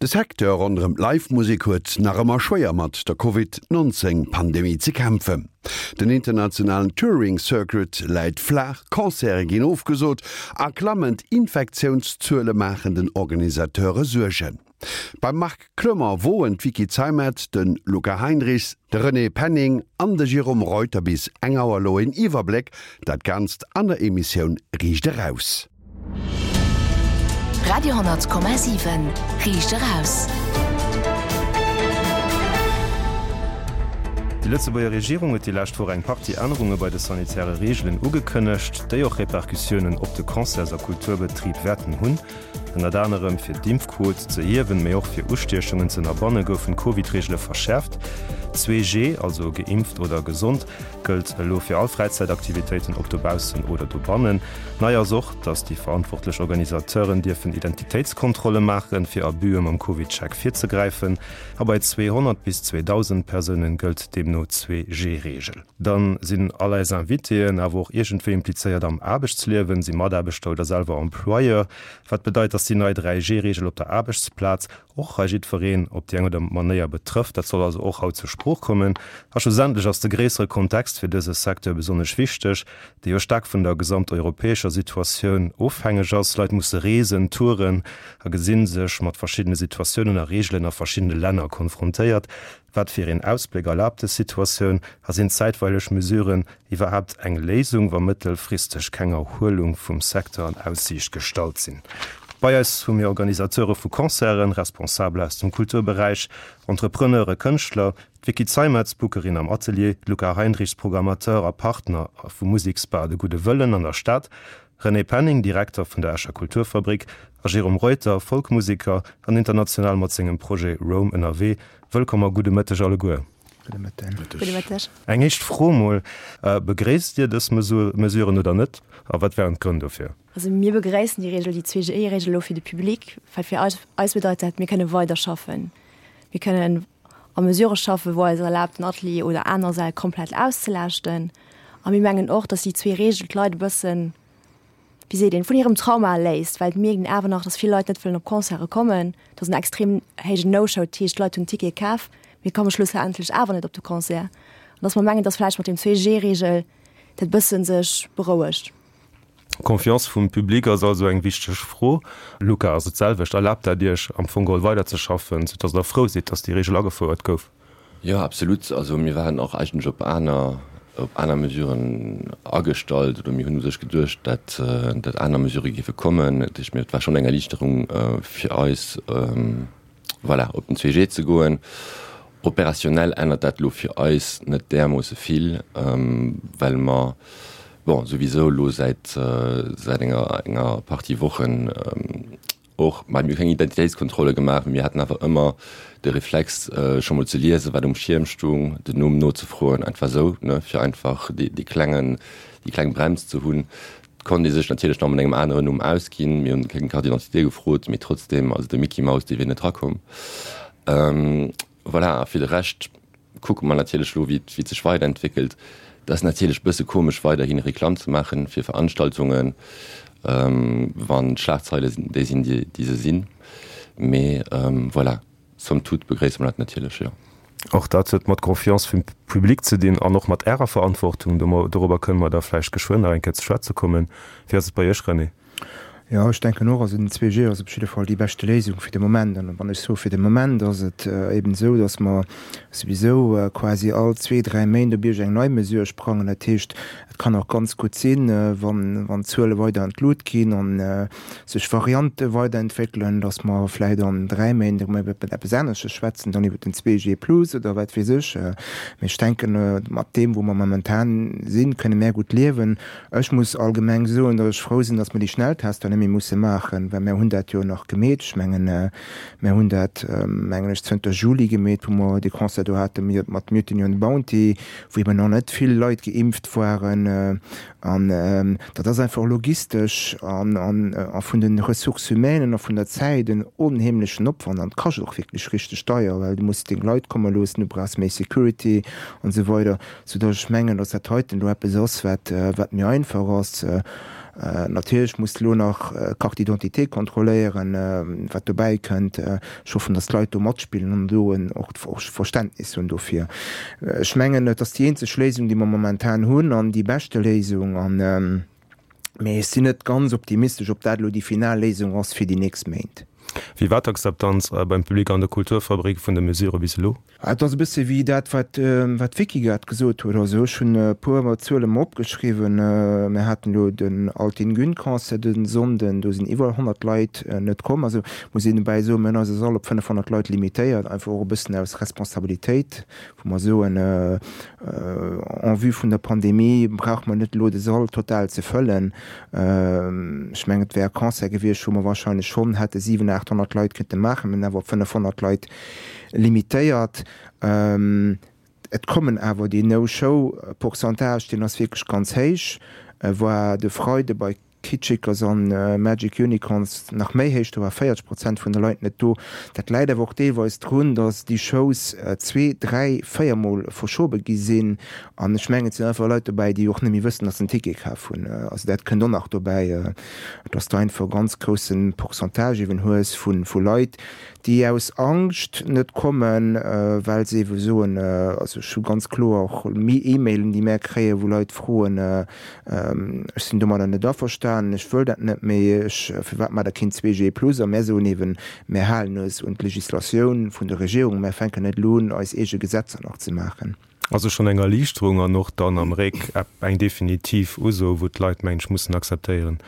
De Secteur ronderëm d'Live-Musek huet nach ëmmer schwéier mat der Covid 19 Pandemie ze kämpfen. Den internationalen Touring Circuit läit flaach, Concerte ginn ofgesot a klammend Infektiounszuele maachen den Organisateure Suergen. Beim Marc Clement woen d'Vicky Zeimet, de Luca Heinrichs, de René Penning an de Jérôme Reuter bis eng Auer elo een Iwwerbléck, dat Ganzt an der Emissioun Riicht Eraus. Radio,7 Riicht eraus. Déi Lëtzebuerger Regierung huet déi lescht Woch eng Partie Ännerunge bei de sanitäre Reegelen ugekënnegt, déi och Repercussiounen op de Concerts a Kulturbetrib wäerten hunn. Ënnert anerem fir d'Impfquot ze hiewen, mee och fir Ustiechungen ze ënnerbanne goufen d'Covid-Reegele verschäerft. 2G, also geimpft oder gesond, gëllt elo fir all Fräizäitaktivitéiten, ob dobaussen oder dobannen. Nei ass och, datt déi verantwortlech Organisateuren dierfen Identitéitskontrolle maachen, fir Abüe mam CovidCheck virzegräifen. A bei 200 bis 2.000 Persounen gëllt deemno d'Zwee-G-Reegel. Dann sinn all eis Invitéen awer och iergendwéi implizéiert am Aarbechtsliewen, si Mataarbechter oder selwer Employeur. Wat bedeit, datt déi nei 3G-Reegel op der Aarbechtsplaz och hei jiddwereen op déi eng oder Manéier betrëfft. Dat soll also och haut zur Sprooch kommen. A schlussendlech ass de gréissere Kontext fir dëse Secteur besonnesch wichteg, dee jo staark vun der gesamteuropäescher Situatioun ofhängeg ass. Leit musse reesen, touren a gesi sech mat verschiddene Situatiounen a Reegelen a verschiddene Länner konfrontéiert. Wat fir een Ausbléck erlaabt dës Situatioun a sinn zäitweileg Mesuren iwwerhaapt eng Léisung, wa mëttelfristeg keng Erhuelung vum Secteur an Aussiicht gestallt sinn? Bei eis hu mir Organisateure vu Concerten, Responsabel aus dem Kulturberäich, Entrepreneure, Kënschtler, d'Vicky Zeimetz, Bookerin am Atelier, d'Luca Heinrichs, Programmateur a Partner vum Museksbar De Gudde Wëllen an der Stad, René Penning, Direkter vun der Escher Kulturfabrik, a Jérôme Reuter, Folkmuseker an international mat sengem Projet Roam ënnerwee. Wëllkomm a gudde Mëtteg alleguer. Gudde Mëtten. Gudde Mëtteg. Eng éischt Fro mol, Begréisst Dir dës Mesuren oder net a wat wären d'Grënn dofir? Also mir begréissen déi Reegel, déi 2G-Reegel elo fir de Public, well fir eis eis bedeit dat, mir kënne weider schaffen. Mir kënnen a Mesurë schaffen, wou eis erlaabt, den Atelier oder aner Säll komplett auszelaaschten. A mir mengen och, datt déi zwee Reegel d'Leit e bëssen, wéi seet een, vun hirem Trauma erléist, well et mierkt een awer nach, datt vill Leit net wëllen op Concerte kommen. Et ass en extrem héijen No-Show, dat heescht, d'Leit hunn Tickete kaf, mee komme schlussendlech awer net op de Concert. An datt mer mengen, datt vläicht mat dem 2G-Reegel dat bësse sech berouegt. D'Confiance vum Public ass also eng wichteg Fro. Luca, ass et d'selwecht? Erlaabt dat Iech am Fong geholl weiderzeschaffen, soudass Der frou sidd, datt déi Reegel agefouert gouf? Jo, absolut. Also mir waren och eigentlech op aner, op aner Mesuren agestallt oder mir hunn u sech geduecht, dat, dat aner Mesurë géife kommen. Dat heescht, mir, et war schonn eng Erliichterung fir eis, voilà, op den 2G ze goen. Operationnel ännert dat elo fir eis net därmoosse vill, well mer, bon, souwisou elo säit, säit enger, enger Partie Wochen och, mä mir hu keng Identitéitskontrolle gemaach, mee mir haten awer ëmmer de Reflex, scho mol ze liesen, wat um Schierm stung, den Numm nozefroen, einfach esou, ne, fir einfach dee, dee klengen, déi kleng Brems ze hunn. Et konnt ee sech natierlech nach mat engem aneren Numm ausginn. Mir hunn keng Carte d'identité gefrot, mee trotzdeem, also de Micky Maus, dee wier net rakomm. Voilà, a fir de Rescht kucke mer natierlech elo, wéi et sech weiderentwéckelt. Et ass natierlech e bësse komesch, weiderhi Reklamm ze maache fir Veranstaltungen, wann d'Schlagzeile déi sinn, déi se sinn. Mee voilà. Somme toute begréisse mer dat natierlech, jo. Och dat huet mat Confiance vum Public ze dinn an och mat Ärer Verantwortung. Dorobber kënne mer da vläicht geschwënn nach eng Kéier ze schwätze kommen. Wéi ass et bei Iech, René? Jo, ech denken och, also den 2G ass op jidde Fall déi beschte Léisung fir de Moment. An wann ech soe fir de Moment, ass et eben esou, datt mer souwisou quasi all zwee, dräi Méint op iergend eng nei Mesure sprangen. Dat heescht, et kann och ganz gutt sinn, wann d'Zuele weider an d'Lut ginn an sech Variante weiderentwéckelen, dass mer vläicht an 3 Méint erëm iwwer eppes anesches schwätzen, dann iwwer den 2G plus oder wat weess ech. Mee ech denken, mat deem, wou mer momentan sinn, kënne mär gutt liewen. Ech muss allgemeng soen, dass ech frou sinn, dass mer déi Schnelltester net méi musse maachen, well mär hunn dat jo nach gemeet. Ech mengen, mär hunn dat, mengen ech, zënter Juli gemeet, wou mer dee Concert do hate mat Mutiny on the Bounty, wou eben nach net vill Leit geimpft waren. An dat ass einfach logistesch a vun de Ressources humaines a vun der Zäit en onheemlechen Opwand an et kascht och wierklech richteg deier, well du muss deng Leit komme loossen, du brauchs méi Security an esou weider, soudass ech mengen, dass dat heiten elo eppes ass, wat wat méi einfach ass. Natierlech muss de elo nach d'Carte d'identité kontrolléieren, wat dobäi kënnt. Ech hoffen, datt d'Leit do matspillen an do och Verständnis hunn dofir. Ech mengen, et ass déi eenzeg Léisung, déi mer momentan hunn an déi beschte Léisung. Mee ech sinn net ganz optimistesch, ob dat elo déi final Léisung ass fir déi nächst Méint. Wéi war d'Akzeptanz beim Public an der Kulturfabrik vun de Mesurë bis elo? Et ass e bësse wéi dat, wat d'Vicky grad gesot huet. Also ech hunn e puer Zuele mer opgeschriwwen. Mir haten elo den Altin Gün Concert de Sonnden, do sinn iwwer 100 Leit net komm. Also muss een dobäi soen, mir hunn eise Sall op 500 Leit limitéiert, einfach och e bëssen aus Responsabilitéit, wou mer soen, en vue vun der Pandemie brauche mer net elo de Sall total ze fëllen. Ech mengen, et wär e Concert gewiescht, wou mer wahrscheinlech schonn hätte 700, 800 Leit kënnte maachen. Mir hunn awer op 500 Leit limitéiert. Et kommen awer, deen No-Show-Pourcentage, deen ass wierklech ganz héich, war de Freide bei Kitschikers an Magic Unicorns nach méi héich, do war 40 Prozent vun de Leit net do. Dat läit awer och deelweis drun, datt déi Shows zwee, dräi, véiermol verschobe gi sinn. An ech mengen, et sinn einfach Leit dobäi, déi och net méi wëssen, datt se en Ticket kaf hunn. Also dat kënnt och nach dobäi, datt s de einfach e ganz grousse Pourcentage eeben hues vu Leit, déi aus Angscht net kommen, well se eebe soen, also ech hu ganz kloer och E-Mailen, déi mär kréien, wou Leit froen, ech sinn domadder net averstanen, ech wëll dat net méi, ech, firwat maacht Der keen 2G plus? A mär soen eeben, mär halen eis un d'Legislatioun vun der Regierung, mär fänken net elo un, eis eege Gesetzer nach ze maachen. Also schonn eng Erliichterung an och dann am Réck eng definitiv Uso, wou d'Leit, mengen ech, mussen akzeptéieren,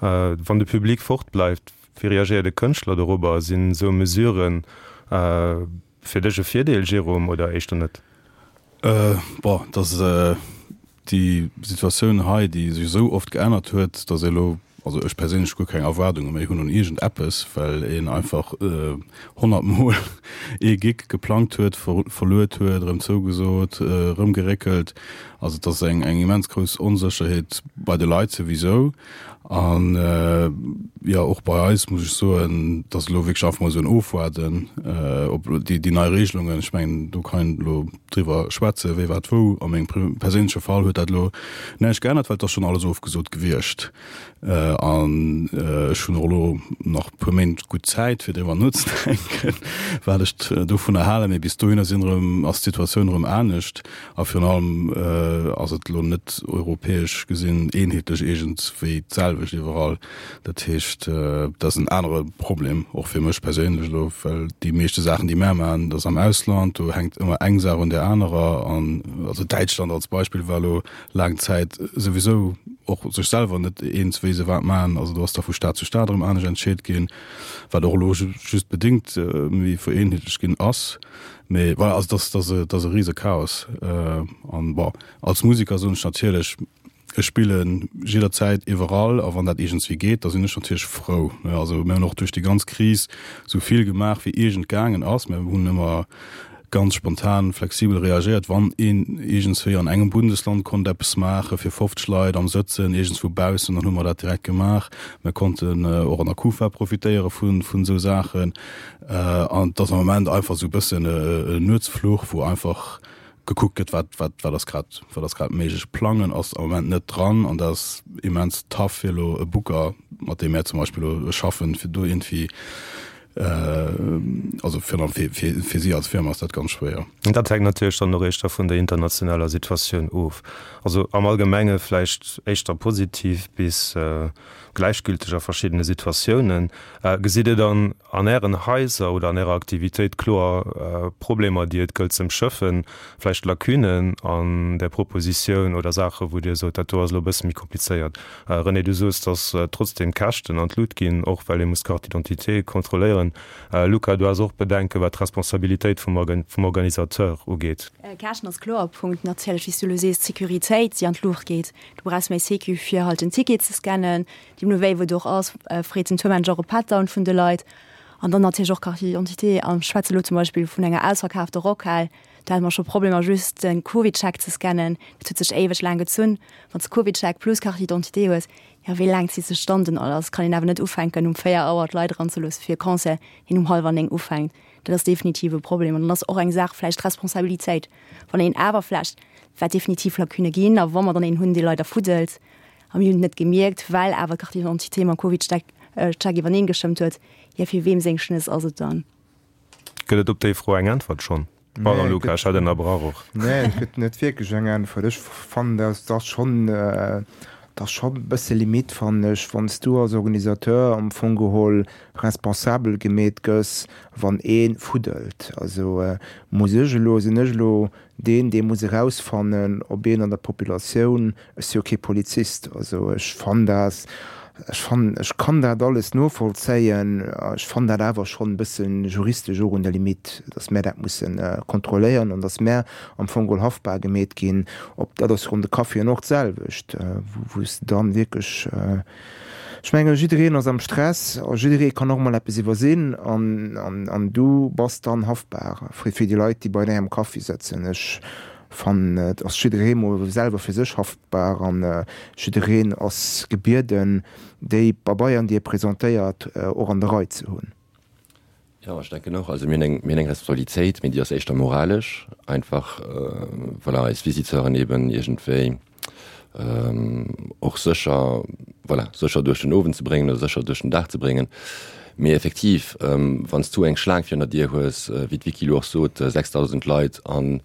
wann de Public fortbleift. Wéi reagéiert e Kënschtler dorobber? Sinn esou Mesuren fir dech e Virdeel, Jérôme, oder éischter net? Bon, et ass déi Situatioun hei, déi sech esou oft geännert huet, datt ee elo, also ech perséinlech, guer keng Erwaardunge méi hunn un iergend eppes, well een einfach 100 Mol ee Gig geplangt huet, verluet huet, erëm zougesot, erëm geréckelt. Also et ass eng immens grouss Onsécherheet bei de Leit souwisou. An jo, och bei eis muss ech soen, dass elo wierklech einfach mol esou en Ofwaarden op déi, déi nei Regelungen, ech mengen, do kann een elo driwwer schwätzen, wéi wat wou. A mengem perséinleche Fall huet dat elo näischt geännert, well et ass schonn alles ofgesot gewiescht. An ech hunn och elo nach e puer Méint gutt Zäit, fir driwwer nozedenken, wat ech dovunner halen. Mee bis dohinner sinn erëm, ass d'Situatioun erëm anescht. A virun allem ass et elo net europäesch gesinn eenheetlech iergendwéi d'selwecht iwwerall. Dat heescht, dat ass en anere Problem, och fir mech perséinlech elo, well déi meeschte Saachen, déi mär maachen, dat ass am Ausland, do hänkt ëmmer eng Saach un där anerer. An also Däitschland als Beispill war elo laang Zäit souwisou och sech selwer net eens, wéi se wat maachen. Also do ass da vu Stad zu Stad erëm anescht entscheet ginn, wat och elo just bedéngt méi vereenheetlecht ginn ass. Mee voilà, also dat ass, dat ass e rise Chaos. An bon, als Musiker soen ech natierlech, ech spille jidderzäit iwwerall a wann dat iergendswéi geet, da sinn ech natierlech frou. Also mir hunn och duerch déi ganz Kris esou vill gemaach wéi iergend gaangen ass. Mir hunn ëmmer ganz spontan, flexibel reagéiert, wann een iergendswéi an engem Bundesland konnt eppes maache fir 50 Leit am Sëtzen iergendswou baussen, dann hu mer dat direkt gemaach. Mir konnten och an der Kufa profitéiere vun esou Saachen. An et ass am Moment einfach esou e bëssen e Nuetsfluch, wou einfach gekuckt gëtt, wat, wat, wat ass grad, wat ass grad méiglech. Plangen ass am Moment net dran an dat ass immens tough fir elo e Booker, mat deem mär zum Beispill elo schaffen, fir do iergendwéi, also virun allem fir, fir, fir si als Firma ass dat ganz schwéier. Dat hänkt natierlech dann och éischter vun der internationaler Situatioun of. Also am Allgemenge vläicht éischter positiv bis gläichgülteg a verschiddene Situatiounen. Gesitt Dir dann an Ären Haiser oder an Ärer Aktivitéit kloer Problemer, déi et gëllt z'ëmschëffen, vläicht Lacunen an der Propositioun oder Saachen, wou Dir sot, dat do ass elo e bësse méi komplizéiert? René, du soos, datt trotzdeem d'Käschten an d'Lut ginn, och well ee muss d'Carte d'identité kontrolléieren. Luca, du has och Bedenken, wat d'Responsabilitéit vum Organisateur ugeet. Käschten ass kloer e Punkt. Natierlech, wéi s du elo sees, d'Sécuritéit, déi an d'Luucht geet. Du brauchs méi Sécu fir halt den Ticket ze scannen. Deemno wéi wou et och ass, freet den Tourmanager och e Pat-down vun de Leit. An dann natierlech och Carte d'identité. An ech schwätze lo zum Beispill vun enger ausverkaafter Rockhal, do hate mer scho Problemer just de CovidCheck ze scannen. Dat huet sech éiweg laang gezunn. Wann s de CovidCheck plus Carte d'identité hues, jo wéi laang zitt sech dann den alles? Kann een awer net ufänken um 4 Auer d'Leit eranzeloosse fir e Concert, deen um hallwer 9 ufänkt. Dat ass definitiv e Problem. An dann ass och eng Saach vläicht d'Responsabilitéit. Wann een awer vläicht, wat definitiv Lacunë ginn, a wa mer dann een hunn, dee leider fuddelt. A mir hunn et net gemierkt, well awer d'Carte d'identité mam Covid-Check iwwerneen gestëmmt huet. Jo, fir weem seng Schnëss ass et dann? Gëtt et op déi Fro eng Äntwert schonn? Pardon Luca, ech hat ënnerbrach och. Nee, et gëtt net wierklech eng Äntwert. Ech fannen, dat ass schonn, dat ass schonn e bësse limite, fannen ech, wann s du als Organisateur am Fong geholl responsabel gemeet gëss, wann ee fuddelt. Also muss ech elo, sinn ech elo deen, dee muss erausfannen, ob een an der Populatioun, ech si jo kee Polizist, also ech fannen dat, ech fannen, ech kann dat alles novollzéien, ech fannen dat awer schonn e bësse juristesch och un der Limite, datt mär dat musse kontrolléieren an datt mär am Fong geholl haftbar gemeet ginn. Ob dat ass ronn de Caféen och d'selwecht, wou s de dann wierklech, Ech mengen, jiddereen ass am Stress a jidderee kann och mol eppes iwwersinn an du bass dann haftbar fir déi Leit, déi bei där am Kaffi sëtzen. Ech fannen, et ass jidderee mol selwer fir sech haftbar an jiddereen ass gebieden, déi Pabeieren, déi e presentéiert, och an der Rei ze hunn. Jo, ech denken och. Also mir hunn eng, mir hunn eng Responsabilitéit, mee déi ass éischter moralesch, einfach voilà, eis Visiteuren eben iergendwéi och sécher, voilà, sécher duerch den Owend ze bréngen oder sécher duerch den Dag ze bréngen. Mee effektiv, wann s du eng Schlaang virun der Dier hues, wéi d'Vicky elo och sot, 6.000 Leit an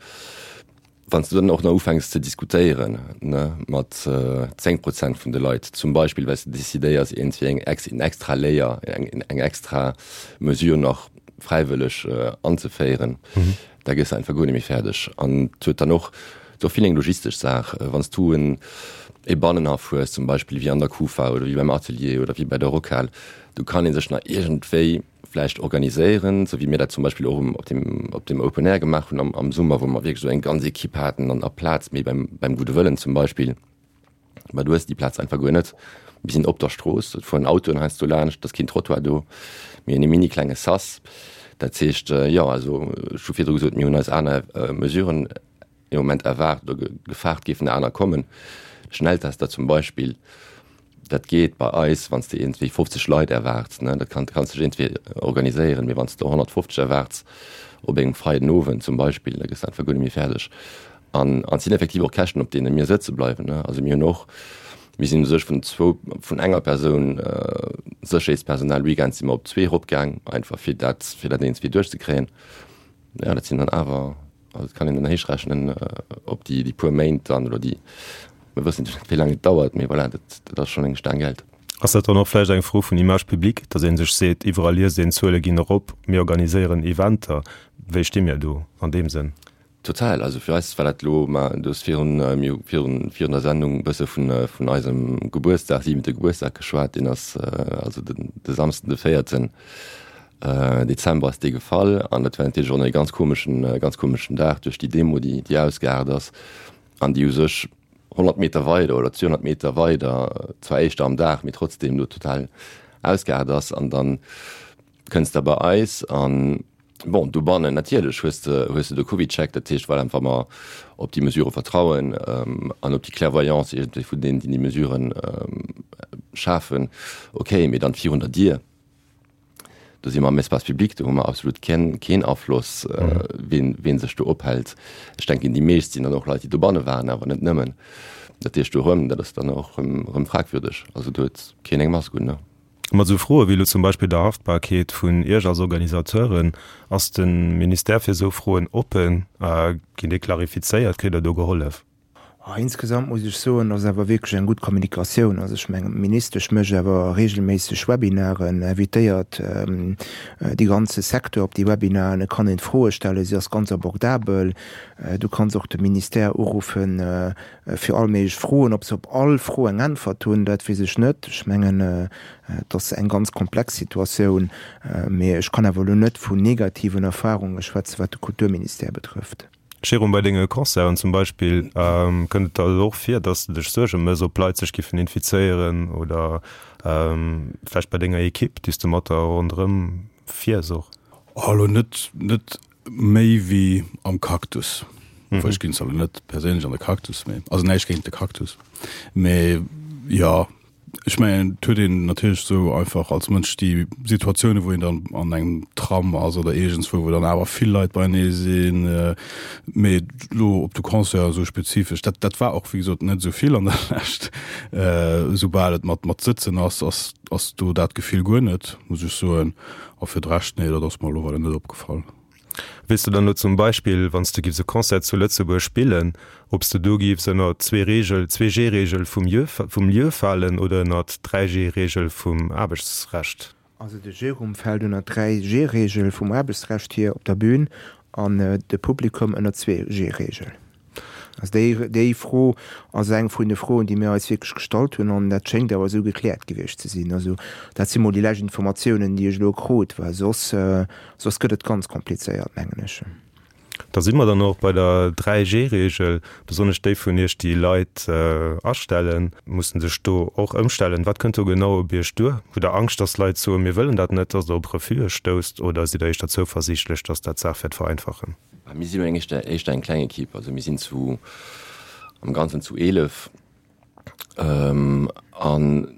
Wann s du dann och nach ufänks ze diskutéieren, ne, mat 10 Prozent vun de Leit zum Beispill, well s de decidéiers iergendwéi eng ex, en extra Layer, eng, eng extra Mesure nach fräiwëlleg anzeféieren, da gëss de einfach guer net méi fäerdeg. An et huet dann och, et ass och vill eng logistesch Saach, wann s du en e Bannenhaff hues zum Beispill wéi an der Kufa oder wéi beim Atelier oder wéi bei der Rockhal, do kann ee sech nach iergendwéi vläicht organiséieren, sou wéi mir dat zum Beispill och um, op dem, op dem Open Air gemaach hunn am, am Summer, wou mer wierklech esou eng ganz Equipe haten an a Plaz, mee beim, beim Gudde Wëllen zum Beispill, ma du hues déi Plaz einfach guer net. Mir sinn op der Strooss, et fueren Autoen heiansdo laanscht, et ass keen Trottoir do, mir hunn e mini klenge Sas. Dat heescht, jo, also ech hu virdru gesot, mir hunn eis aner Mesuren ee Moment erwaart oder gefaart géifen aner kommen. Schnelltester zum Beispill, dat geet bei eis, wann s de iergendwéi 50 Leit erwaarts, ne, dat kann, kanns dech iergendwéi organiséieren, mee wann s de 150 erwaarts op engem Freiden Owend zum Beispill, da gëss de einfach guer net méi fäerdeg. An an et sinn effektiv och Käschten, op deene mir sëtze bleiwen, ne. Also mir hunn och, mir sinn u sech vun zwou, vun enger Persoun Sécherheetspersonal weekends si mer op zwee eropgaang, einfach fir dat, fir dat iergendwéi duerchzekréien. Jo, dat sinn dann awer Also et kann een dann héichrechnen op déi déi puer Méint dann oder déi, mir wëssen net wéi laang et dauert, mee voilà, dat dat ass schonn eng Staang Geld. Ass dat dann och vläicht eng Fro vun Image publique, datt ee sech seet, iwwerall liest een, d'Zuele ginn erop, mir organiséieren Eventer, wéi sti mir do an deem Sënn? Total, also fir eis war dat elo, ma du hues virun, mir hu virun virun der Sendung e bësse vun vun eisem Gebuertsdag, siwente Gebuertsdag geschwat, deen ass also den de Samsden de véierten Dezember ass dee gefall an dat war natierlech och e ganz komeschen, ganz komeschen Dag duerch déi Demo, déi, déi ausgeaart ass an déi u sech 100 Meter weider oder 200 Meter weider, zwar éischter am Dag, mee trotzdem do total ausgeaart ass. An dann kënns de bei eis an, bon, dobannen natierlech hues de, hues de de CovidCheck, dat heescht, voilà, wa mer op déi Mesurë vertrauen an op déi Clairvoyance iergendwéi vun deenen, déi déi Mesuren schafen, okay, mee dann virun der Dier, Do si mer am Espace public, do hu mer absolut keen, keen Afloss, wien, wien sech do ophält. Ech denken, déi meescht sinn dann och Leit, déi dobanne waren, awer net nëmmen. Dat heescht, do erëm, dat ass dann och erëm, erëm fragwürdeg. Also do huet keen eng Mask un, ne? Mat esou Froe wéi elo zum Beispill der Haftbarkeet vun Iech als Organisateuren, ass de Ministère fir esou Froen oppen? Ginn déi klarifizéiert? Kritt Der do gehollef? Insgesamt muss ech soen, ass awer wierklech eng gutt Kommunikatioun. Also ech mengen, d'Ministesch mécht awer regelméisseg Webinaren, invitéiert dee ganze Secteur op déi Webinaren. Et kann een Froe stellen, si ass ganz abordabel. Du kanns och de Ministère uruffen fir all méiglech Froen. Ob se op all Fro eng Äntwert hunn, dat weess ech net. Ech mengen, et ass eng ganz komplex Situatioun, mee ech kann awer elo net vun negativen Erfarunge schwätzen, wat de Kulturministère betrëfft. Jérôme, bei denge Concerten zum Beispill, kënnt et der elo och vir, dass de dech Suerge mëss, ob Leit sech giffen infizéieren oder vläicht bei denger Equipe, déi s de mat der ronderëm fiers och? Oh, elo net, net méi wéi am Cactus. Obwuel ech ginn zwar elo net perséinlech an de Cactus, mee also näischt géint de Cactus, mee jo. Ech mengen, et huet een natierlech esou einfach als Mënsch déi Situatiounen, wou een dann an engem Tram ass oder iergendswou, wou dann awer vill Leit beienee sinn. Mee elo op de Concert esou spezifesch, dat, dat war och wéi gesot net esou vill an der Lescht. Esoubal et mat, mat Sëtzen ass, ass, ass do dat Gefill guer net, muss ech soen. A fir de Rescht, nee, dat ass mer elo weider net opgefall. Weess de dann elo zum Beispill, wann s de giffs e Concert zu Lëtzebuerg spillen, ob s de do giffs ënner d'Zwee-Reegel, d'Zwee-G-Reegel vum Lieu, vum Lieu falen oder ënner d'Dräi-G-Reegel vum Aarbechtsrecht? Also de Jérôme fält ënner d'Dräi-G-Reegel vum Aarbechtsrecht hier op der Bühn an de Publikum ënner d'Zwee-G-Reegel. Also déi, déi Fro ass eng vun de Froen, déi mir eis wierklech gestallt hunn, an dat schéngt awer esou gekläert gewiescht ze sinn. Also dat si mol déi lescht Informatiounen, déi ech elo krut, well soss, soss gëtt et ganz komplizéiert, mengen ech. Da si mer dann och bei der 3G-Reegel. Besonnesch déi vun Iech, déi Leit astellen, mussen sech do och ëmstellen. Wat kënnt do genau op Iech duer? Hutt Der Angscht, dass Leit soen, mir wëllen dat net, dass Der op Refuse stousst, oder sidd Der éischter zouversiichtlech, dass dat d'Saach wäert vereinfachen? Mir sinn elo éischter éischter eng kleng Equipe, also mir sinn zu am Ganzen zu 11 an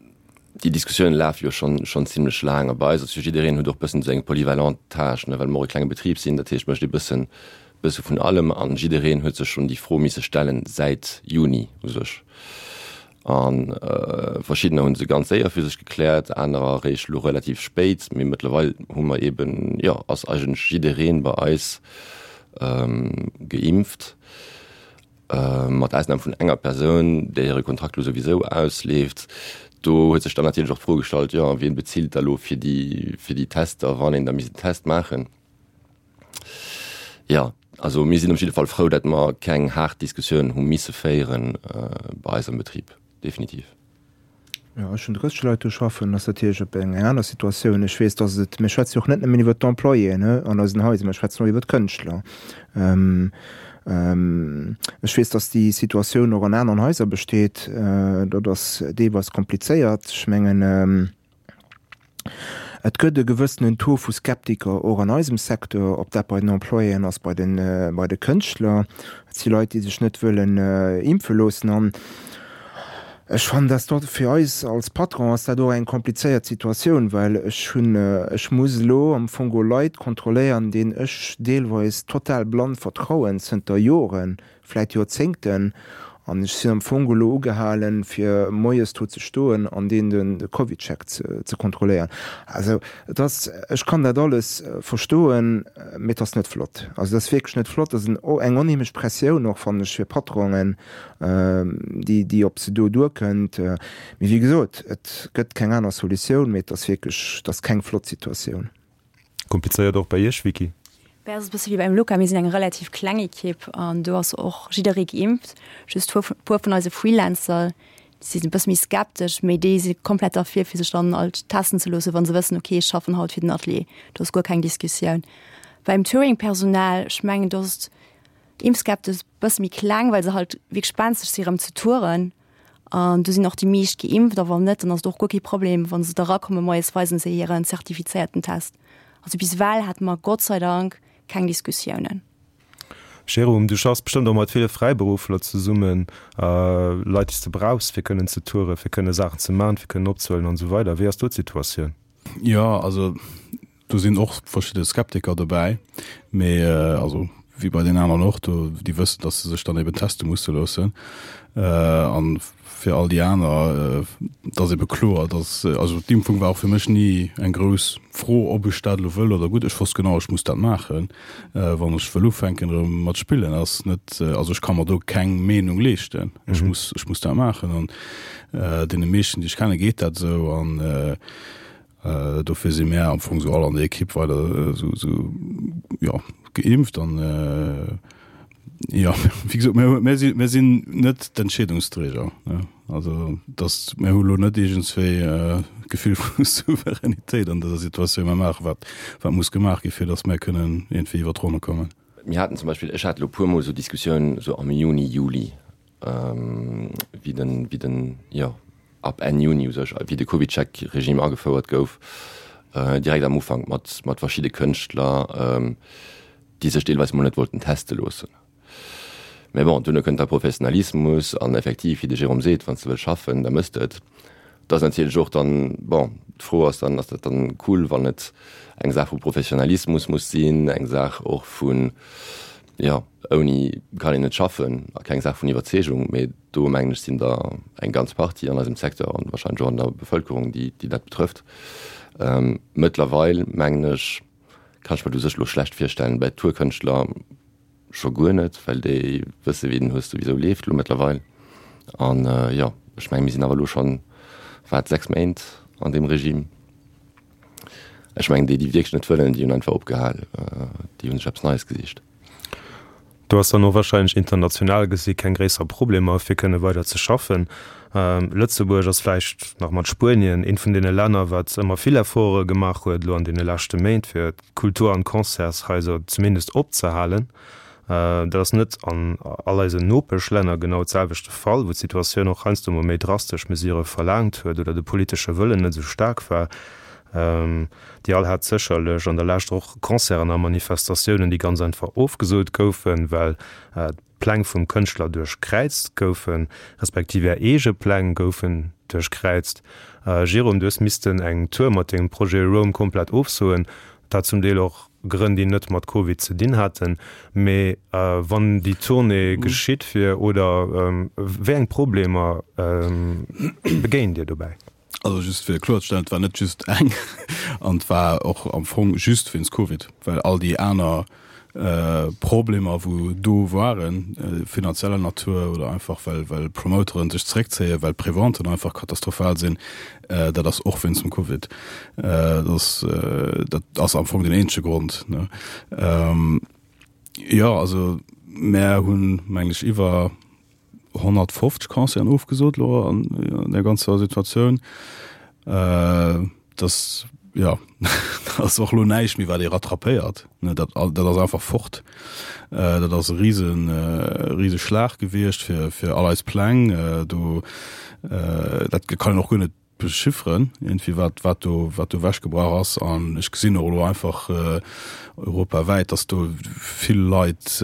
déi Diskussioune lafe jo schonn schonn zimlech laang. A bei eis ass jo jiddereen huet och bëssen esou eng polyvalent Tâche, ne, well mer och e klenge Betrib sinn. Dat heescht, mécht ee bëssen bësse vun allem an jiddereen huet sech schonn déi Fro misse stellen säit Juni u sech. A verschiddener hu se ganz séier fir sech gekläert, anerer eréischt elo relativ spéit. Mee mëttlerweil hu mer eeben, jo, ass eigentlech jidderee bei eis geimpft, mat Ausnam vun enger Persoun, där hire Kontrakt elo souwisou ausleeft. Do huet sech dann natierlech och d'Fro gestallt, jo, wien bezilt da elo fir déi, fir déi Tester, wann een da misst en Test maachen? Jo, also mir sinn op jidde Fall frou, datt mer keng haart Diskussioun hu misse féiere bei eis am Betrib, definitiv. Jo, ech hunn 30 Leit do schaffen, ass natierlech op eng aner Situatioun. Ech weess, datt et, mir schwätze jo och net nëmmen iwwert d'Employéen an eisen Haiser, mir schwätzen och iwwert d'Kënschtler. Ech weess, datt déi Situatioun och an aneren Haiser besteet. Dat ass deelweis komplizéiert. Ech mengen, Et gëtt e gewëssenen Taux vu Skeptiker och an eisem Secteur, ob dat bei den Employéen ass, bei de bei de Kënschtler. Et si Leit, déi sech net wëllen impfe loossen. An ech fannen, dass dat fir eis als Patron ass dat och eng komplizéiert Situatioun, well ech hunn, ech muss elo am Fong geholl Leit kontrolléieren, deenen ech deelweis total blann vertrauen zënter Joren, vläit Joerzéngten, an ech sinn am Fong elo ugehalen, fir moies do ze stoen an deen de CovidCheck ze kontrolléieren. Also et ass, ech kann dat alles verstoen, mee et ass net flott. Also et ass wierklech net flott. Et ass eng onheemlech Pressioun och, fannen ech, fir Patronen, déi, déi op se do duerkënnt. Mee wéi gesot, et gëtt keng aner Solutioun, mee et ass wierklech, et ass keng flott Situatioun. Komplizéiert och bei Iech, Vicky? Bei eis ass et e bësse wéi beim Luca, mir sinn eng relativ kleng Ekipp an do ass och jidderee geimpft. Just e puer vun eise Freelancer, déi sinn e bësse méi skeptesch, mee déi si komplett derfir, fir sech dann alt testen ze loossen, wa se wëssen, okay, ech schaffen haut fir den Atelier. Do ass guer keng Diskussioun. Beim Touring-Personal, ech mengen, do ass d'Impfskepsis e bësse méi kleng, well se halt wierklech benzeg si rëm ze touren. An do sinn och déi meescht geimpft, a wann net, dann ass et och guer kee Problem, wa se da erakommen moies, weisen se hiren zertifizéierten Test. Also bis ewell hate mer Gott sei Dank keng Diskussiounen. Jérôme, du schaffs bestëmmt och mat ville Fräiberuffler zesummen, Leit, déi s de brauchs, fir kënnen ze touren, fir kënne Saachen ze man, fir kënnen opzehuelen an esou weider. Wéi ass do d'Situatioun? Jo, also Do sinn och verschidde Skeptiker dobäi, mee also wéi bei den aneren och, do déi wëssen, datt se sech dann eben teste musse loossen. An fir all déi aner, et ass ebe kloer, datt, also d'Impfung war och fir mech ni eng grouss Fro, ob ech dat elo wëll oder gutt. Ech wosst genau, ech muss dat maachen, wann ech wëll ufänken erëm mat spillen. Ass net, also ech ka mer do keng Meenung leeschten. Ech muss, ech muss dat maachen. An deene meeschten, déi ech kenne, geet dat esou. An Dofir si mär am Fong sou all an der Ekipp weider sou, sou, jo, geimpft an, jo, wéi gesot, mir, mir si, mir sinn net d'Entscheedungsträger, ne. Also dass, mir hu lo net iergendswéi d'Gefill vu Souveränitéit an dëser Situatioun. Mir maache wat, wat muss gemaach gi fir dass mär kënnen iergendwéi iwwer d'Ronne kommen. Mir haten zum Beispill, ech hat elo puermol sou Diskussiounen sou am Juni, Juli, wéi den, wéi den, jo, ab Enn Juni u sech, wéi de CovidCheck-Regime agefouert gouf, direkt am Ufank mat, mat verschidde Kënschtler, déi sech deelweis mol net wollten teste loossen. Mä bon, duerno kënnt da Professionalismus an effektiv, wéi de Jérôme seet, wann s de wëlls schaffen, da mëss de et. Et ass natierlech och dann, bon, d'Fro ass dann, ass dat dann cool, wann et eng Saach vu Professionalismus muss sinn, eng Saach och vun, jo, ouni kann een net schaffen a keng Saach vun Iwwerzeegung. Mee do mengen ech sinn der eng ganz Partie an eisem Secteur an wahrscheinlech och an der Bevëlkerung, déi déi dat betrëfft. Mëttlerweil mengen ech, kann ech mer dat u sech elo schlecht virstellen, bei Tourkënschtler, Scho guer net, well déi wësse wéi den Hues souwisou leeft elo mëttlerweil. An jo, ech menge mir sinn awer elo schonn, wat, 6 Méint an deem Regime. Ech mengen déi, déi wierklech net wëllen, déi hunn einfach opgehal, déi hu sech eppes Neies gesicht. Do ass dann och wahrscheinlech international gesi keng gréisser Problemer fir kënne weider ze schaffen. Lëtzebuerg ass vläicht nach mat Spuenien eent vun deene Länner, wat ëmmer vill Efforte gemaach huet elo an deene leschte Méint fir d'Kultur an d'Concertshaiser zumindest opzehalen. Dat ass net an all eisen Nopeschlänner genau d'selwecht de Fall, wou d'Situatioun och heiansdo mol méi drastesch Mesure verlaangt huet oder de politesche Wëllen net esou staark war. Dir all hat sécherlech an der Lescht och Concerten a Manifestatiounen, déi ganz einfach ofgesot goufen, well Pläng vum Kënschtler duerchkräizt goufen, respektiv är eege Pläng goufen duerchkräizt. Jérôme, du hues missten eng Tour mat dengem Projet Roam komplett ofsoen, dat zum Deel och Grënn, déi net mat Covid ze dinn haten. Mee wann déi Tournée geschitt wier, oder wéi eng Problemer begéint Dir dobäi? Also just fir kloerzestellen, et war net just eng an et war och am Fong just wéinst Covid, well all déi aner Problemer wou do waren, finanzieller Natur oder einfach well well Promoteren sech zeréckzéien, well d'Preventen einfach katastrophal sinn, dat ass och wéinst dem Covid. Dat ass dat ass am Fong den eenzege Grond, ne. Jo, also mär hunn, mengen ech, iwwer 150 Concerten ofgesot lo an der ganzer Situatioun. Äh, das ja ass och lo näischt méi wat ee rattrapéiert ne dat dat ass einfach fort. Äh, dat ass e riesen äh, riese Schlag gewiescht fir fir all eis Pläng äh, do äh, dat kann een och guer net bechifferen irgendwie wat wat do wat do ewechgebrach ass an ech gesinn och elo einfach europawäit, datt do vill Leit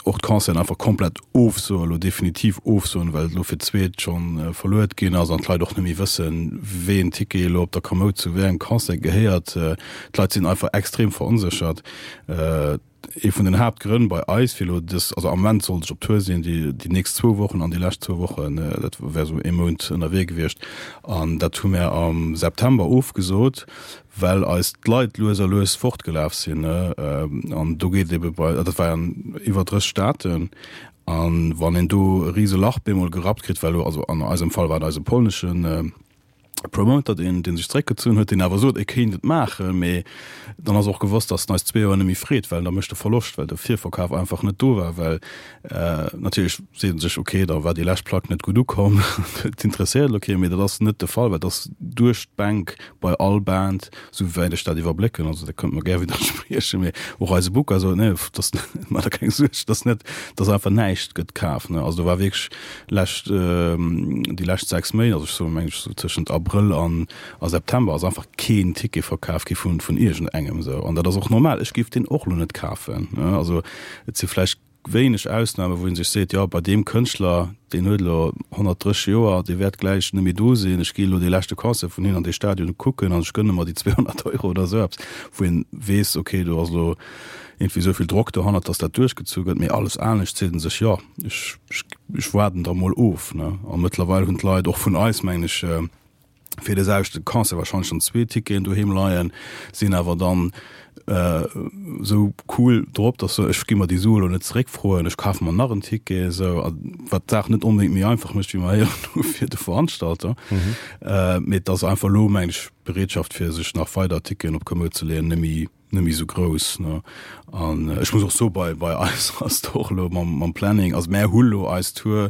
och d'Concerten einfach komplett ofsoen, elo definitiv ofsoen, well et elo fir d'zweet schonn verluet ginn ass an d'Leit och net méi wëssen, wéi een Ticket elo op der Komoud zu wéi engem Concert gehéiert. D'Leit sinn einfach extrem veronséchert. Ee vun den Haaptgrënn bei eis fir elo dës, also am Moment sollt ech op Tour sinn, déi déi nächst zwou Wochen an déi lescht zwou Wochen, dat wär esou ee Mount ënnerwee gewiescht, an dat hu mär am September ofgesot, well eis d'Leit lues a lues fortgelaf sinn. An do geet ebe bei, dat war an iwwer 30 Staaten, a wann een do e rise Lach bemol gerappt kritt, well elo, also an eisem Fall war et eise polneschen, Promoter, deen, deen sech zeréckgezunn huet, deen awer sot, e kéint et maachen, mee dann ass och gewosst, datt en eis zwee Joer net méi freet, well da mécht e Verloscht, well de Virverkaf einfach net do war, well natierlech seet en sech, okay, da war déi lescht Plack net gutt ukomm, dat interesséiert elo kee, mee dat ass net de Fall, well et ass duerch d'Bänk bei all Band, sou wäit ech dat iwwerblécken, also da kënnt mer gär widderspriechen, mee och eise Booker sot, nee, dat maacht der keng Suerg, dat ass net, dat ass einfach näischt gëtt kaf, ne, also do war wierklech lescht, déi lescht 6 Méint, also ech soen, meng ech, sou tëschent Abrëll an a September ass einfach keen Ticket verkaf gi vun, vun iergendengem esou. An dat ass och normal, ech géif deen och elo net kafen, ne. Also et si vläicht wéineg Ausname wou ee sech seet, jo bei deem Kënschtler, deen huet elo 130 Joer, dee wäert gläich net méi do sinn, ech gi elo dee leschte Concert vun him an dee Stadion kucken an ech gënne mer déi 200 Euro oder esou eppes, wou een weess, okay, do ass elo iergendwéi esou vill Drock dohannert, datt dat duerchgezu gëtt. Mee alles anescht seet e sech, jo ech, ech waarden da mol of. Ne? A mëttlerweil hunn d'Leit och vun eis, mengen ech, fir de selwechte Concert wahrscheinlech schonn zwee Ticketen doheem leien, sinn awer dann esou cool drop, dass se, ech gi mer déi Sue elo net zeréckfroen, ech kafe mer nach en Ticket, esou, wat d'Saach net onbedéngt méi einfach mécht, wéi mer héieren hu fir de Veranstalter. Mee et ass einfach elo, mengen ech, d'Bereetschaft fir sech nach weider Ticketen op Komoud ze leeën, net méi net méi esou grouss ne an ech muss och soe bei bei eis ass et och elo mam mam Planning, also mär hu lo eis Tour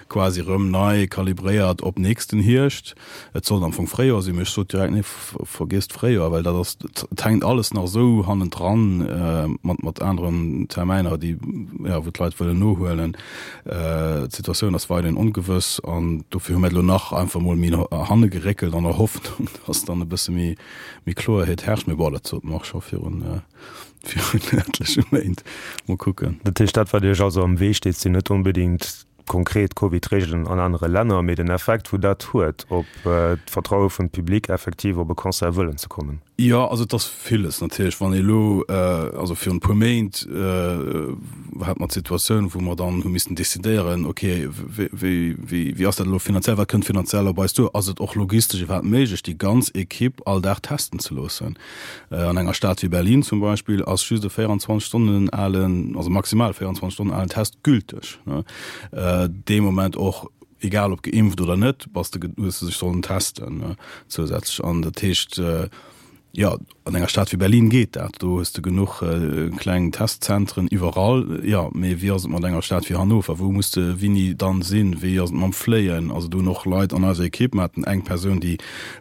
quasi erëm nei kalibréiert op nächsten Hierscht. Et sollt am Fong Fréijoer sinn, mee ech sot direkt nee vergiesst Fréijoer, well dat ass et hänkt alles nach esou hannendran mat mat aneren Termäiner déi jo wou d'Leit wëllen nohuelen. D'Situatioun ass weiderhin ongewëss an dofir hu mär et elo nach einfach mol méi no hanne geréckelt an der Hoffnung, dass dann e bësse méi Méi Kloerheet herrscht, mee bon, dat sot mer och scho virun virun etleche Méint. Mol kucken. Dat heescht, dat wat Iech also am Wee steet, sinn net onbedéngt. konkret Covid-Reegelen an anere Länner, mee den Effekt, wou dat huet op d'Vertraue vum Public, effektiv op e Concert wëllen ze kommen. Jo, also et ass villes natierlech. Wann ee elo, also virun e puer Méint hate mer d'Situatioun, wou mer dann hu missten decidéieren, okay, wéi, wéi, wéi ass dat elo finanziell, wat kënnt finanziell op eis duer, ass et och logistesch iwwerhaapt méiglech, déi ganz Ekipp all Dag testen ze loossen? An enger Stad wéi Berlin zum Beispill ass just e 24 Stonnen alen, also maximal 24 Stonnen alen Test gülteg. Dee Moment och, egal ob geimpft oder net, bass de, hues de sech sollen testen zousätzlech. An dat heescht, jo, an enger Stad wéi Berlin geet dat, do hues de genuch kleng Testzentren iwwerall. Jo, mee wéi ass et mat enger Stad wéi Hannover? Wou muss de wéini dann sinn? Wéi ass et mam Fléien? Also do hunn och Leit an eiser Ekipp, mer haten eng Persoun, déi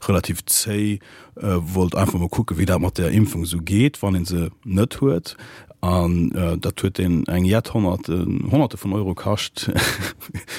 relativ zéi wollt einfach mol kucken, wéi dat mat der Impfung esou geet, wann ee se net huet. An dat huet deen eng jett Honnerten, Honnerte vun Euro kascht.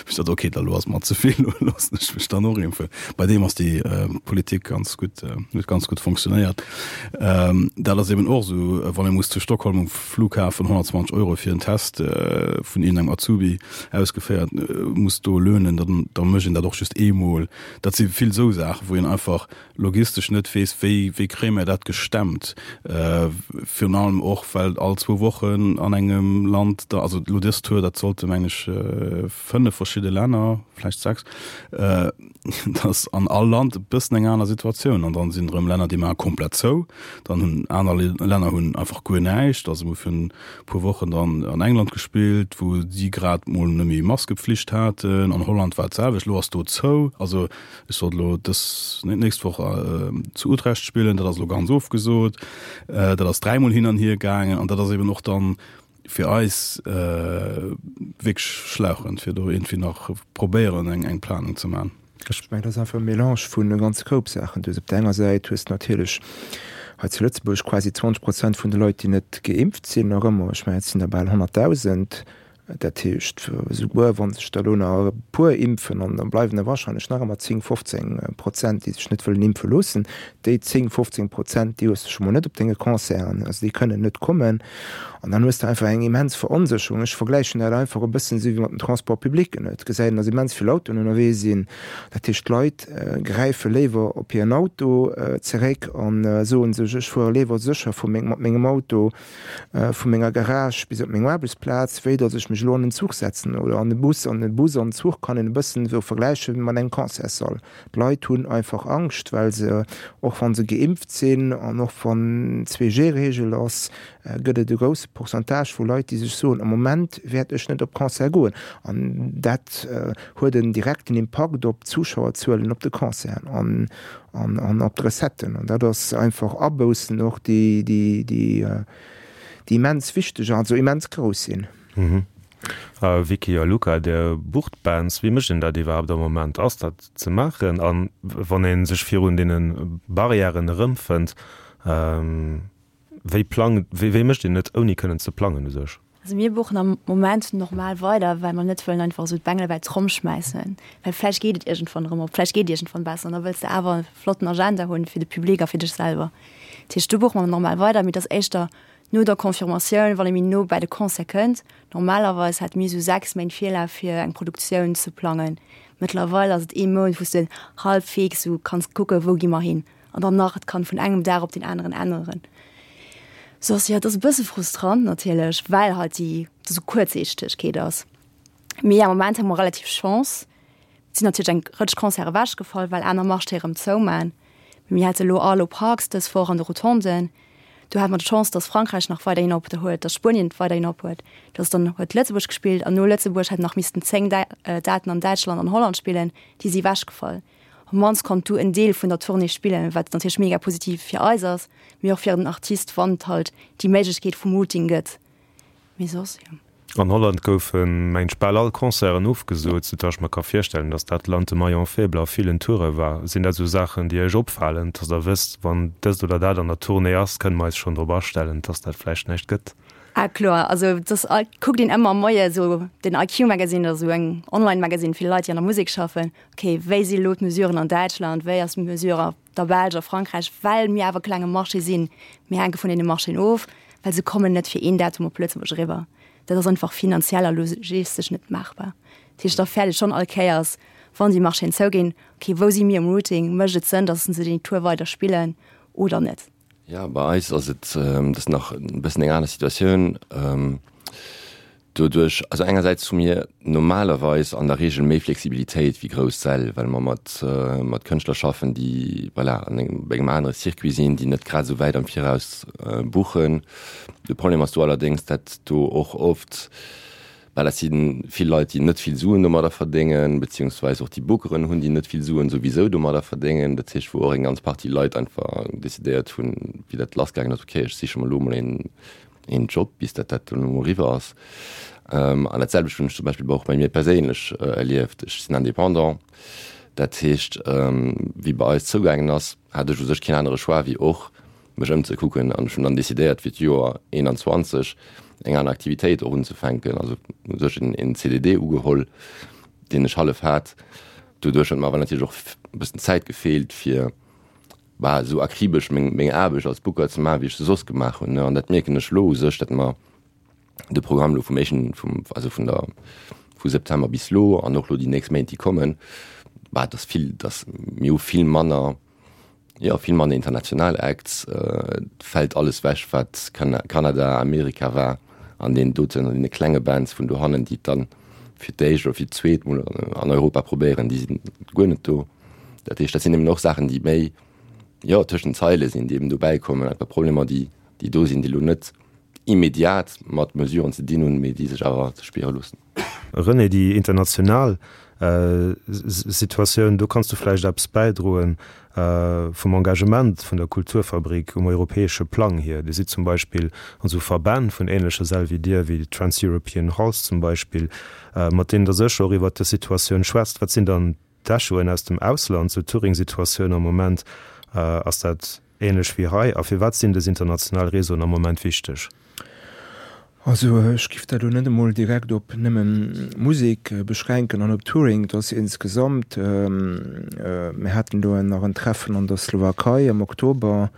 Ech sot, okay, da lo ass mer ze vill, lo loossen ech mech dann och impfen. Bei deem ass déi Politik ganz gutt, huet ganz gutt fonctionnéiert. Dat ass eben och esou, wann ee muss zu Stockholm um Flughafen 120 Euro fir en Test vun iergendengem Azubi ausgeféiert muss do lönen, dann da mécht een dat och just eemol. Dat si vill esou Saachen, wou een einfach logistesch net weess, wéi, wéi kréie mir dat gestemmt, virun allem och, well all zwou Wochen an engem Land da, also elo dës Tour, dat sollte meng ech fënnef verschidde Länner, vläicht sechs, dass an all Land e bëssen eng aner Situatioun an dann sinn erëm Länner, déi maache komplett zou, dann hunn aner Länner hunn einfach guer näischt. Also mir hu virun e puer Wochen dann an England gespillt, wou si grad mol net méi Maskepflicht haten, an Holland war et d'selwecht, elo ass do zou. Also Ech sollt elo dës, nee, d'nächst Woch zu Utrecht spillen, dat ass elo ganz ofgesot. Dat ass dräimol hin an hier gaangen an dat ass eben och dann fir eis wierklech schlauchend, fir do iergendwéi nach probéieren eng eng Planung ze maachen. Ech mengen, dat ass einfach e Melange vun e ganze Koup Saachen. Du hues op der enger Säit hues de natierlech hei zu Lëtzebuerg quasi 20 Prozent vun de Leit, déi net geimpft sinn, nach ëmmer. Ech mengen, et sinn der bal 100.000. Dat heescht, esouguer wa sech der elo nach e puer impfen, an da bleiwen der wahrscheinlech nach ëmmer 10, 15 Prozent, déi sech net wëllen impfe loossen, déi 10, 15 Prozent, déi hues de scho mol net op denge Concerten, also déi kënnen net kommen. An dann hues de einfach eng immens Veronsécherung. Ech vergläichen dat einfach e bëssen esou wéi mat den Transports publics. Et gesäit een, datt immens vill Autoen ënnerwee sinn. Dat heescht, d'Leit gräife léiwer op hiren Auto zeréck a soen sech, ech fuere léiwer sécher vu meng, mat mengem Auto vu menger Garage bis op meng Aarbechtsplaz, wéi datt ech mech elo an den Zuch setzen oder an de Bus. An de Bus an den Zuch kann een e bëssen esou vergläiche mat engem Concertssall. D'Leit hunn einfach Angscht, well se, och wa se geimpft sinn an och wann 2G-Reegel ass, gëtt et e grousse Pourcentage vu Leit, déi sech soen, am Moment wäert ech net op Concert goen. An dat huet en direkten Impakt op d'Zuschauerzuelen op de Concerten. An an op d'Recetten. An dat ass einfach Aboussen och, déi, déi, déi, déi immens wichteg, also immens grouss sinn. Vicky a Luca, Dir bucht Bands. Wéi mécht een dat iwwerhaapt am Moment? Ass dat ze maachen? A wann ee sech virun deene Barrièren erëmfënnt, wéi plangt, wéi mécht een et, ouni kënnen ze plangen u sech? Also mir buchen am Moment normal weider, well mer net wëllen einfach esou d'Bengele bei d'Tromm schmäissen, well vläicht geet et iergendwann erëm op, vläicht geet et iergendwann besser an da wëlls de awer e flotten Agenda hunn fir de Public a fir dech selwer. Dat heescht, do buche mer normal weider, mee et ass éischter no der Confirmatioun, wann ee méi no bäi de Concert kënnt. Normalerweis hätte mir esou 6 Méint Virlaf fir eng Produktioun ze plangen. Mëttlerweil ass et ee Mount, wou s de halbwegs esou kanns kucken, wou gi mer hin. An dann nach, et kann vun engem Dag op den aneren änneren. Soss, jo, et ass e bësse frustrant natierlech, well halt déi esou Kuerzsiichtegkeet ass. Mee am Moment hu mer relativ Chance. Et sinn natierlech eng Rëtsch Concerte ewechgefall, well aner Marchéë rëm zouman. Mee mir hate elo Arlo Parks dës Woch an de Rotonden. Do hate mer d'Chance, datt Frankräich nach weiderhin op huet, datt Spuenien weiderhin op huet. Datt dann huet Lëtzebuerg gespillt an no Lëtzebuerg hätten nach missten 10 Daten an Däitschland an Holland spillen, déi si ewechgefall. Op mannst konnt du en Deel vun der Tournée spillen, wat natierlech mega positiv fir eis ass, mee och fir den Artist, wann et halt déi Méiglechkeet vum Routing gëtt. Mee soss, jo. An Holland goufen, mengen ech, bal all Concerten ofgesot, soudatt ech mer ka virstellen, datt dat Land de Maillon faible a villen Toure war. Sinn dat esou Saachen, déi Iech opfalen, datt Der wësst, wann dëst oder dat an der Tournée ass, kënne mer eis schonn drop astellen, datt dat vläicht näischt gëtt? Ah kloer, also dass kuckt een ëmmer moie sou den IQ Magazine, dat ass esou eng Online Magazine fir Leit déi an der Musek schaffen, ok wéi si elo d'Mesuren an Däitschland, wéi ass d'Mesure a der Belsch, a Frankräich, well mir awer klenge Marché sinn, mir hänke vun deene Marchéen of, well se kommen net fir een Datum op Lëtzebuerg eriwwer. Dat ass einfach finanziell a logistesch net maachbar. Dat heescht, da fäert ee schonn all Kéiers, wann déi Marchéen zouginn, okay, wou si mir um Routing, mécht et Sënn, datt se déi Tour weider spillen oder net? Jo, bei eis ass et, dat ass nach e bëssen eng aner Situatioun. Doduerch, also engersäits hu mir normalerweis an der Reegel méi Flexibilitéit wéi grouss Säll, well mer mat, mat Kënschtler schaffen, déi, voilà, an engem, op engem anere Circuit sinn, déi net grad esou wäit am Viraus buchen. De Problem ass do allerdéngs, dat do och oft, well dat si vill Leit, déi net vill Suen domadder verdéngen, beziehungsweis och déi Bookeren hunn, déi net vill Suen souwisou domadder verdéngen. Dat heescht, wou och eng ganz Partie Leit einfach decidéiert hunn, wéi dat lassgaangen ass, okay, ech siche mer elo emol een, een Job, bis dat dat dann elo eriwwer ass. An dat selwecht hunn ech zum Beispill och bei mir perséinlech erlieft. Ech sinn Indépendant, dat heescht, wéi bei eis zougaangen ass, hat ech u sech keen anere Choix wéi och mech ëmzekucken an ech hunn dann decidéiert fir d'Joer 21 eng aner Aktivitéit och unzefänken, also u sech en CDD ugeholl, deen ech hallef hat. Doduerch huet mer awer natierlech och e bëssen Zäit gefeelt fir bah esou akribesch meng meng Aarbecht als Booker ze maachen, wéi ech se soss gemaach hunn, an dat mierken ech elo u sech, datt mer de Programm elo vum éischten, vum, also vun der, vu September bis elo an och elo déi nächst Méint déi kommen, bah et ass vill, dass mir hu vill manner, jo vill manner international Acts, et fält alles wech wat Kanada, Amerika war an deenen doten, an deene klenge Bands vun dohannen, déi et dann fir d'éischt oder fir d'zweet mol an Europa probéieren, déi sinn guer net do. Dat heescht, dat sinn eben och Saachen, déi méi, jo, tëschent den Zeile sinn, déi eben dobäi kommen, einfach Problemer, déi, déi do sinn, déi elo net immediat mat Mesuren ze dinn hunn, mee déi sech awer ze spiere loossen. René, déi international Situatioun, do kanns du vläicht eppes bäidroen vum Engagement vun der Kulturfabrik um europäesche Plang hier. Dir sidd zum Beispill an esou Verbänn vun ähnleche Säll wéi dir, wéi Trans-European Halls zum Beispill, mat deenen der sécher och iwwert dës Situatioun schwätzt. Wat sinn dann d'Echoen aus dem Ausland zur Touring-Situatioun am Moment? Ass dat ähnlech wéi hei? A firwat sinn dës international Réseauen am Moment wichteg? Also ech giff dat elo net emol direkt op nëmmen Musek beschränken an op Touring. Et ass insgesamt, mir haten do nach en Treffen an der Slowakei am Oktober,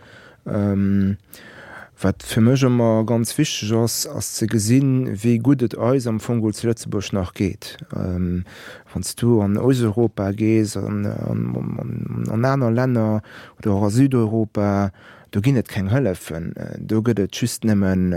Wat fir mech ëmmer ganz wichteg ass, ass ze gesinn, wéi gutt et eis am Fong geholl zu Lëtzebuerg nach geet. Wann s du an Osteuropa gees, an aner Länner oder och a Südeuropa, do ginn et keng Hëllefen, do gëtt et just nëmmen,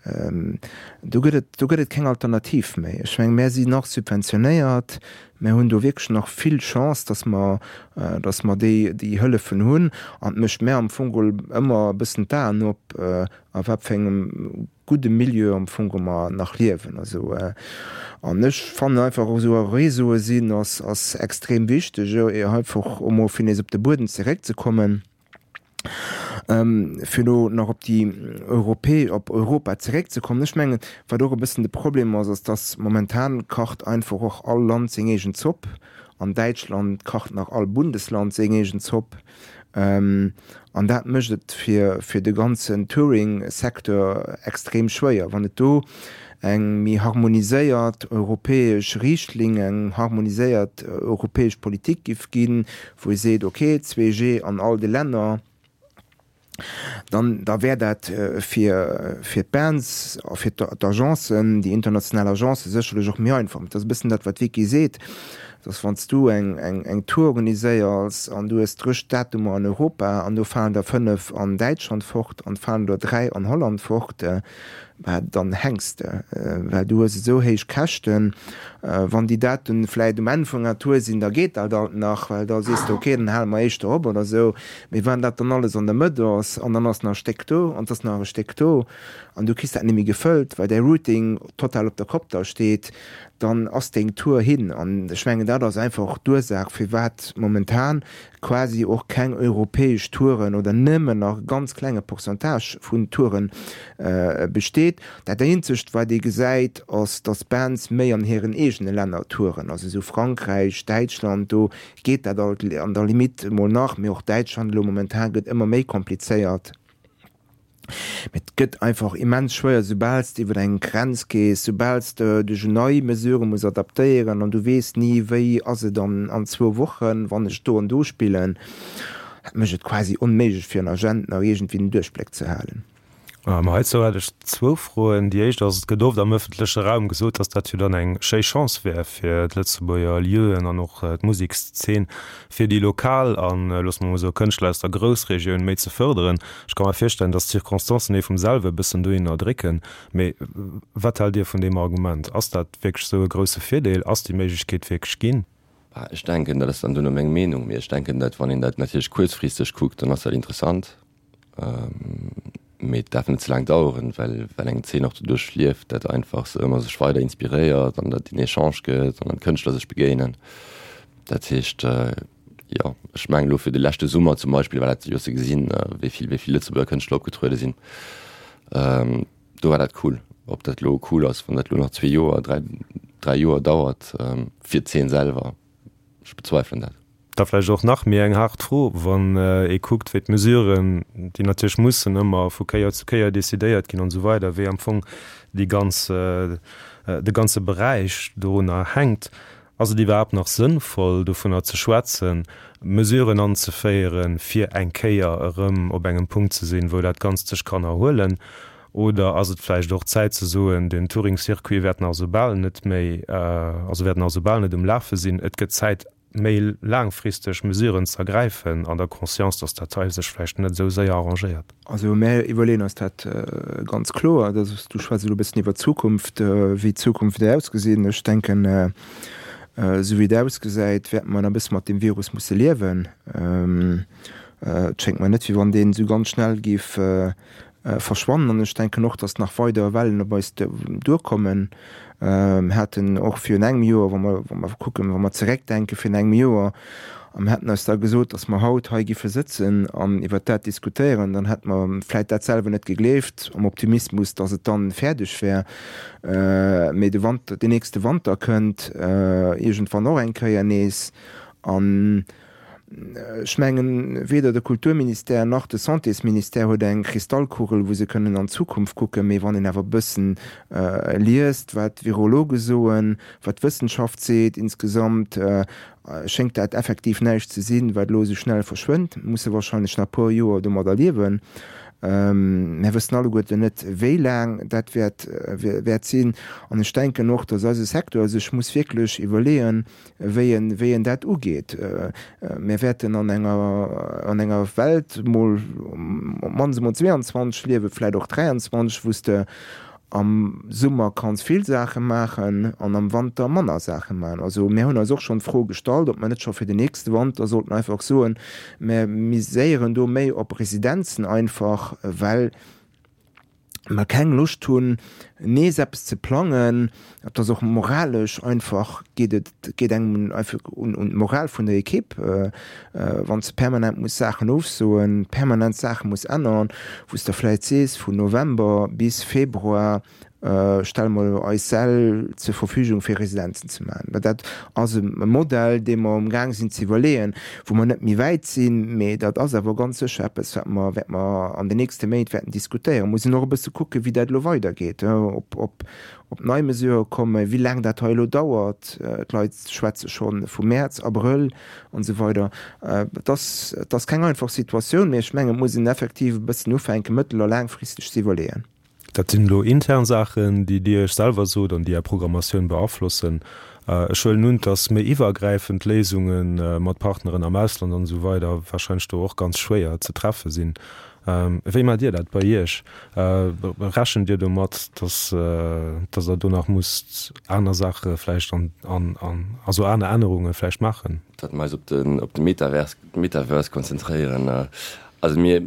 Do gëtt et, do gëtt et keng Alternativ méi. Ech mengen, mär sinn nach subventionéiert, mär hunn do wierklech nach vill Chance, datt mer, datt mer déi, déi Hëllefen hunn. An et mécht mär am Fong geholl ëmmer e bëssen d'Aen op, a wat fir engem gudde Milieu am Fong geholl mer nach liewen. Also, an ech fannen einfach, esou Réseaue sinn, ass, ass extrem wichteg, einfach emol fir nees op de Buedem zeréckzekommen. Fir elo nach op déi Europä, op Europa zeréckzekommen, ech mengen, wat och e bëssen de Problem ass, ass, dass momentan kacht einfach och all Land seng eegen Zopp. An Däitschland kacht nach all Bundesland seng eegen Zopp. An dat mécht et fir, fir de ganzen Touring-Secteur extrem schwéier. Wann et do eng méi harmoniséiert europäesch Riichtlinn, eng harmoniséiert europäesch Politik giff ginn, wou ee seet, ok, 2G an all de Länner, dann da wär dat fir fir d'Bands a fir d'Agencen, déi international Agencen sécherlech och méi einfach. Et ass e bëssen dat, wat d'Vicky seet, dass wann s du eng eng eng Tour organiséiers an du hues 30 Datumer an Europa an do falen der 5 an Däitschland fort an falen der 3 an Holland fort, Bah, dann hänks de, well du hues esou héich Käschten. Wann déi Daten vläit um Enn vun enger Tour sinn, da geet dat alt nach, well da sees de, ok, dann hale mer éischter op oder esou. Mee wann dat dann alles an der Mëtt ass an dann ass nach e Stéck do an et ass nach e Stéck do an du kriss dat net méi gefëllt, well däi Routing total op der Kopp da steet, dann ass deng Tour hin. An ech mengen, dat ass einfach d'Ursaach, firwat momentan quasi och keng europäesch Touren oder nëmmen nach e ganz klenge Pourcentage vun Touren besteet. Dat eenzegt wat ee gesäit ass, datt Bands méi an hiren eegene Länner touren, also esou Frankräich, Däitschland, do geet dat alt an der Limite emol nach, mee och Däitschland elo momentan gëtt ëmmer méi komplizéiert. Mee et gëtt einfach immens schwéier, soubal s de iwwer eng Grenz gees, soubal s de dech un nei Mesurë muss adaptéieren an du weess ni, wéi ass et an an zwou Wochen, wann ech do an do spillen. Dat mécht et quasi onméiglech fir en Agent nach iergendwéi den Duerchbléck ze halen. Ma heizou hätt ech zwou Froen. Déi éischt ass, Et gëtt oft am ëffentleche Raum gesot, datt dat jo dann eng schéi Chance wär fir d'Lëtzebuerger Lieuen an och d'Musekszeen, fir déi lokal an, loosse mer emol soen, Kënschtler aus der Groussregioun méi ze fërderen. Ech ka mer virstellen, datt d'Circonstancen ee vum selwe e bëssen dohinner drécken. Mee wat haalt Dir vun deem Argument? Ass dat wierklech esou e grousse Virdeel? Ass déi Méiglechkeet wierklech ginn? Bah, ech denken, dat ass dann duerno meng Meenung, mee ech denken, datt wann een dat natierlech kuerzfristeg kuckt, dann ass dat interessant. Mee et däerf net ze laang daueren, well well eng Zeen och doduerch lieft, dat einfach se ëmmer sech weider inspiréiert an dat en Echange gëtt an dann d'Kënschtler sech begéinen. Dat heescht, jo, ech mengen elo fir de leschte Summer zum Beispill war dat jo ze gesinn, wéi vill wéi vill Lëtzebuerger Kënschtler opgetruede sinn. Do war dat cool. Ob dat elo cool ass, wann dat elo nach zwee Joer, dräi dräi Joer dauert, fir d'Zeen selwer, ech bezweifelen dat. Da vläicht och nach méi eng haart Fro, wann ee kuckt, wéi d'Mesuren, déi natierlech mussen ëmmer vu Kéier zu Kéier decidéiert ginn an esou weider, wéi am Fong déi ganz, de ganze Beräich dorunner hänkt. Ass et iwwerhaapt nach sënnvoll, dovunner ze schwätzen, Mesuren anzeféieren, fir eng Kéier erëm op engem Punkt ze sinn, wou dat Ganzt sech kann erhuelen? Oder ass et vläicht och Zäit ze soen, den Touring-Circuit wäert nach esou bal net méi, also wäert nach esou bal net um Lafe sinn, et gëtt Zäit, méi laangfristeg Mesuren ze ergräifen, an der Conscience, datt dat hei sech vläicht net esou séier arrangéiert? Also mär iwwerleeën eis dat ganz kloer. Dat ass, du schwätz elo e bëssen iwwer d'Zukunft, wéi d'Zukunft wäert ausgesinn. Ech denken, esou wéi et ausgesäit, wäerte mer nach e bësse mat deem Virus musse liewen. Et schéngt mer net, wéi wann deen esou ganz schnell géif verschwannen an ech denken och, datt nach weider Wellen op eis duerkommen. Mir haten och virun engem Joer, wa mer, wa mer kucken, wa mer zeréckdenke virun engem Joer, a mir hätten eis da gesot, datt mer haut hei giffe sëtzen an iwwert dat diskutéieren, dann hätte mer vläit dat selwer net gegleeft, am Optimismus, datt et dann fäerdeg wär. Mee de Wanter, deen nächste Wanter kënnt iergendwann och eng Kéier nees an Ech mengen, weder de Kulturministère nach de Santésministère huet eng Kristallkugel, wou se kënnen an d'Zukunft kucken. Mee wann een awer e bëssen liest, wat d'Virologe soen, wat d'Wëssenschaft seet insgesamt, schéngt dat effektiv näischt ze sinn, wat elo esou schnell verschwënnt. Mir musse wahrscheinlech nach e puer Joer domadder liewen. Mir wëssen alleguerten net, wéi laang dat wäert wäert sinn. An ech denken och, dass eise Secteur sech muss wierklech iwwerleeën, wéi en, wéi en dat ugeet. Mir wäerten an enger, an enger Welt mol op d'mannst emol 22 liewen, vläicht och 23, wou s de am Summer kanns vill Saache maachen an am Wanter manner Saache maachen. Also mir hunn eis och schonn d'Fro gestallt, ob mer net scho fir den nächste Wanter sollten einfach soen, mir miséieren do méi op Residenzen einfach, well mer keng Loscht hunn nees eppes ze plangen, et ass och moralesch einfach, geet et geet engem einfach un un d'Moral vun der Equipe, wann s de permanent muss Saachen ofsoen, permanent Saache muss ännern, wou s de vläit sees vun November bis Februar stelle mer eis Säll zur Verfügung fir Residenzen ze maachen. Mä dat ass e Modell dee mer um Gaang sinn ze iwwerleeën, wou mer net méi wäit sinn, mee dat ass awer ganz sécher eppes, wat mer, wat mer an den nächste Méint wäerten diskutéieren. Muss een och e bësse kucken, wéi dat elo weidergeet, ob, ob, ob nei Mesurë kommen, wéi laang dat hei elo dauert. D'Leit schwätze scho vu Mäerz, Abrëll an esou weider. Et ass, et ass keng einfach Situatioun, mee ech mengen, et muss een effektiv e bëssen ufänken, mëttel a laangfristeg ze iwwerleeën. Dat sinn elo intern Saachen, déi Dir Iech selwer sot an déi Är Programmatioun beaflossen. Ech huelen un, dass méi iwwergräifend Léisunge mat Partneren am Ausland an esou weider wahrscheinlech do och ganz schwéier ze treffe sinn. Wéi maacht Dir dat bei Iech? Rechent Dir domat, dass dass Der do nach musst aner Saache vläicht an an also aner Ännerunge vläicht maachen? Datt mer eis op den op de Metaverse Metaverse konzentréieren. Also mir.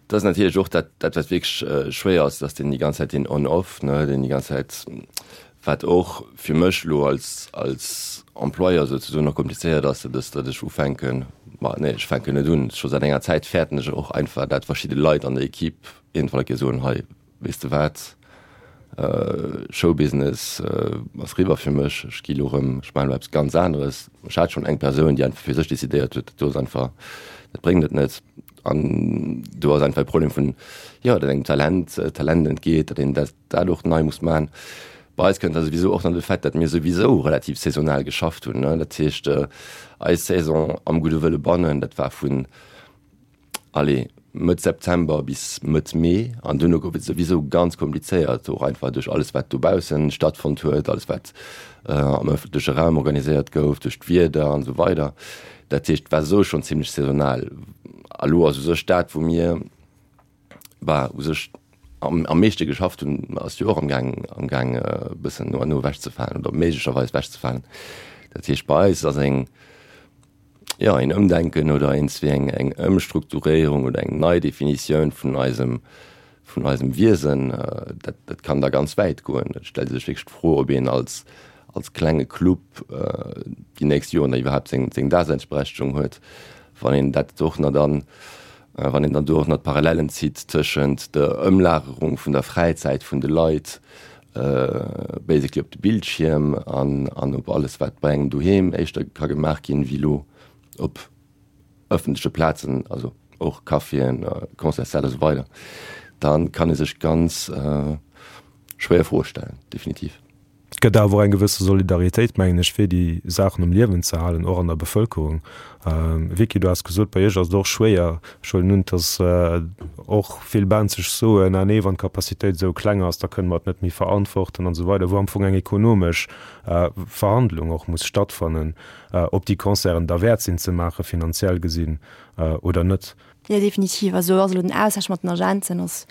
Dat ass natierlech och dat, dat wat wierklech schwéier ass, dass deen déi ganz Zäit deen On-Off, ne, deen déi ganz Zäit, wat och fir mech elo als, als Employeur souzesoen och komplizéiert ass, dat ass, datt ech ufänken, ma nee, ech fänken net un, scho säit enger Zäit fäerten ech och einfach, dat verschidde Leit an der Equipe iergendwann eng Kéier soen, hei, weess de wat, Showbusiness ass riwwer fir mech, ech gi lo rëm, ech maachen elo eppes ganz aneres. Ech hat schonn eng Persoun, déi einfach fir sech decidéiert huet, dat do ass einfach, dat bréngt et net. An do ass einfach e Problem vun, jo, datt engem Talent, Talent entgeet, datt een dat dat och nei muss maachen. Bei eis kënnt da souwisou och nach de Fait, datt mir souwisou relativ saisonal geschafft hunn, ne. Dat heescht, eis Saison am Gudde Wëlle bannen, dat war vun, allez. Mëtt September bis Mëtt Mee an duerno gouf et souwisou ganz komplizéiert, och einfach duerch alles wat dobaussen stattfonnt huet, alles wat am ëffentleche Raum organiséiert gouf, duerch d'Wieder an esou weider. Dat heescht, et war esou schonn zimlech saisonal. A lo ass u sech dat, wou mir, bah, u sech am, am meeschte geschafft hunn, ass jo och am Gaang, am Gaang e bëssen no an no ewechzefalen oder méiglecherweis ewechzefalen. Dat heescht, bei eis ass eng, jo, een Ëmdenken oder eens wéi eng, eng Ëmstrukturéierung oder eng Neidefinitioun vun eisem, vun eisem Wiesen, dat, dat kann da ganz wäit goen. Et stellt ee sech wierklech d'Fro, ob een als, als klenge Club déi nächst Joren da iwwerhaapt seng, seng Daseinsberechtegung huet, wann een dat och nach dann, wann een dann do och nach d'Parallellen zitt tëschent der Ëmlagerung vun der Fräizäit vun de Leit basically op de Bildschierm an, an op alles wat bei engem doheem éischter ka gemaach ginn, wéi elo op ëffentleche Plazen, also och Caféen, Concertssäll a sou weider, da kann ee sech ganz schwéier Froe stellen, definitiv. Et gëtt awer och eng gewësse Solidaritéit, mengen ech, fir déi Saachen um Liewen ze halen, och an der Bevëlkerung. Vicky, du has gesot, bei iech ass et och schwéier. Ech huelen un, datt och vill Bands sech soen, ah nee, wann d'Capacitéit esou kleng ass, da kënne mer et net méi verantworten an esou weider, wou am Fong eng ekonomesch Verhandlung och muss stattfannen, ob déi Concerten derwäert sinn ze maachen, finanziell gesinn, oder net. Jo, definitiv. Also ass elo den Austausch mat den Agenten ass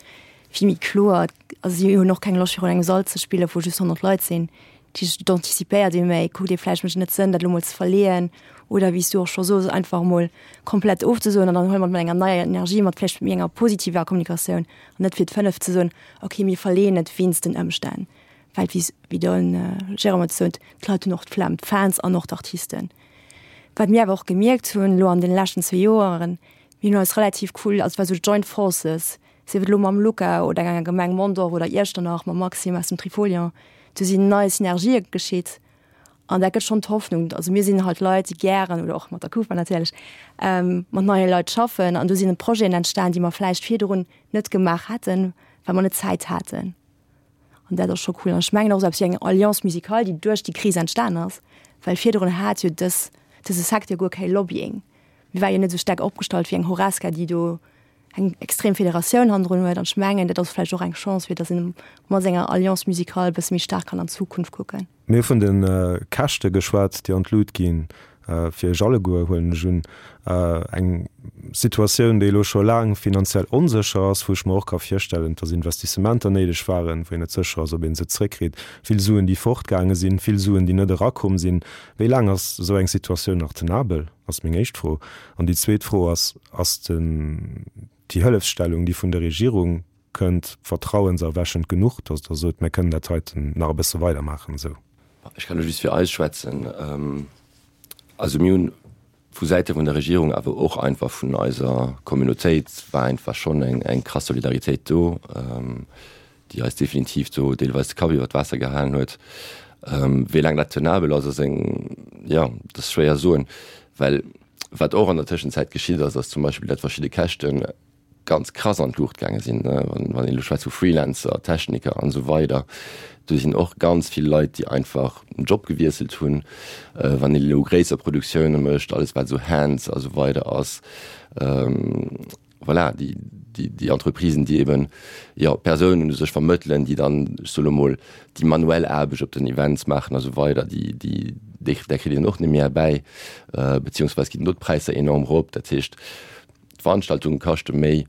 vill méi kloer. Also si hunn och keng Loscht virun engem Sall ze spillen, wou just 100 Leit sinn. Dat heescht, et antizipéiert ee méi, kuckt ee vläicht, mécht et net Sënn, dat elo mol ze verleeën oder wéi s du och scho sos, einfach emol komplett ofzesoen an dann huele mer et mat enger neier Energie, mat vläicht méi enger positiver Kommunikatioun an net fir d'fënneft ze soen, okay, mir verleeën et wéinst den Ëmstänn. Well wéi wéi de Jérôme et sot, d'Leit hunn och d'Flemm, d'Fans an och d'Artisten. Wat mir awer och gemierkt hunn elo an deene leschten zwee Joeren, mir hunn eis relativ cool, also et war esou Joint Forces, sief et elo mam Luca oder enger Gemeng Mondorf oder Iechternach, mam Maxime aus dem Trifolion, do sinn nei Synergië geschitt an dat gëtt schonn d'Hoffnung. Also mir sinn halt Leit, déi gären, oder och mat der Kufa natierlech, mat neie Leit schaffen an do sinn Projeten entstan, déi mer vläicht virdrun net gemaach hätten, well mer net d'Zäit haten. An dat ass scho cool. An ech mengen och esou eppes wéi eng Alliance musicale, déi duerch déi Kris entstan ass, well virdrun hat jo dës, dëse Secteur guer kee Lobbying. Mir war jo net esou staark opgestallt wéi eng Horesca, déi do eng extrem Federatioun hannendrun huet. An ech mengen, dat ass vläicht och eng Chance, fir datt een mat senger Alliance musicale e bësse méi staark kann an d'Zukunft kucken. Mir hu vun de Käschte geschwat, déi an d'Lut ginn, fir Iech alleguer, huelen ech un. Eng Situatioun, déi elo scho laang finanziell onsécher ass, wou ech mer och ka virstellen, dass Investissementer néideg waren, wou een net sécher ass, ob ee se zréckkritt, vill Suen, déi fortgaange sinn, vill Suen, déi net erakomm sinn. Wéi laang ass esou eng Situatioun nach tenabel, ass meng éischt Fro. An déi zweet Fro ass, Ass déi Hëllefsstellung, déi vun der Regierung Kënnt vertrauenserwächend genuch, dass Der sot, mir kënnen dat heiten nach e bësse weidermaachen esou? Ech kann elo just fir eis schwätzen. Also mir hunn vu Säite vun der Regierung, awer och einfach vun eiser Communautéit war einfach schonn eng eng krass Solidaritéit do, déi eis definitiv do deelweis de Kapp iwwer d'Waasser gehalen huet. Wéi laang dat tenabel ass, ass eng, jo, dat ass schwéier soen, well wat och an der Tëschenzäit geschitt ass, ass zum Beispill, datt verschidde Käschten ganz krass an d'Luucht gaange sinn, wann een elo schwätzt vu Freelancer, Techniker an esou weider, do sinn och ganz vill Leit, déi einfach den Job gewiesselt hunn. Wann een elo gréisser Produktioune mécht, alles wat esou Hands a sou weider ass, voilà, déi, déi, déi Entreprisen, déi eben, jo, Persounen u sech vermëttelen, déi dann, ech soe lo mol, déi manuell Aarbecht op den Events maachen a sou weider, déi, déi, där kritt een och net méi erbäi, beziehungsweis ginn do d'Präisser enorm erop. Dat heescht, D'Veranstaltunge kaschte méi.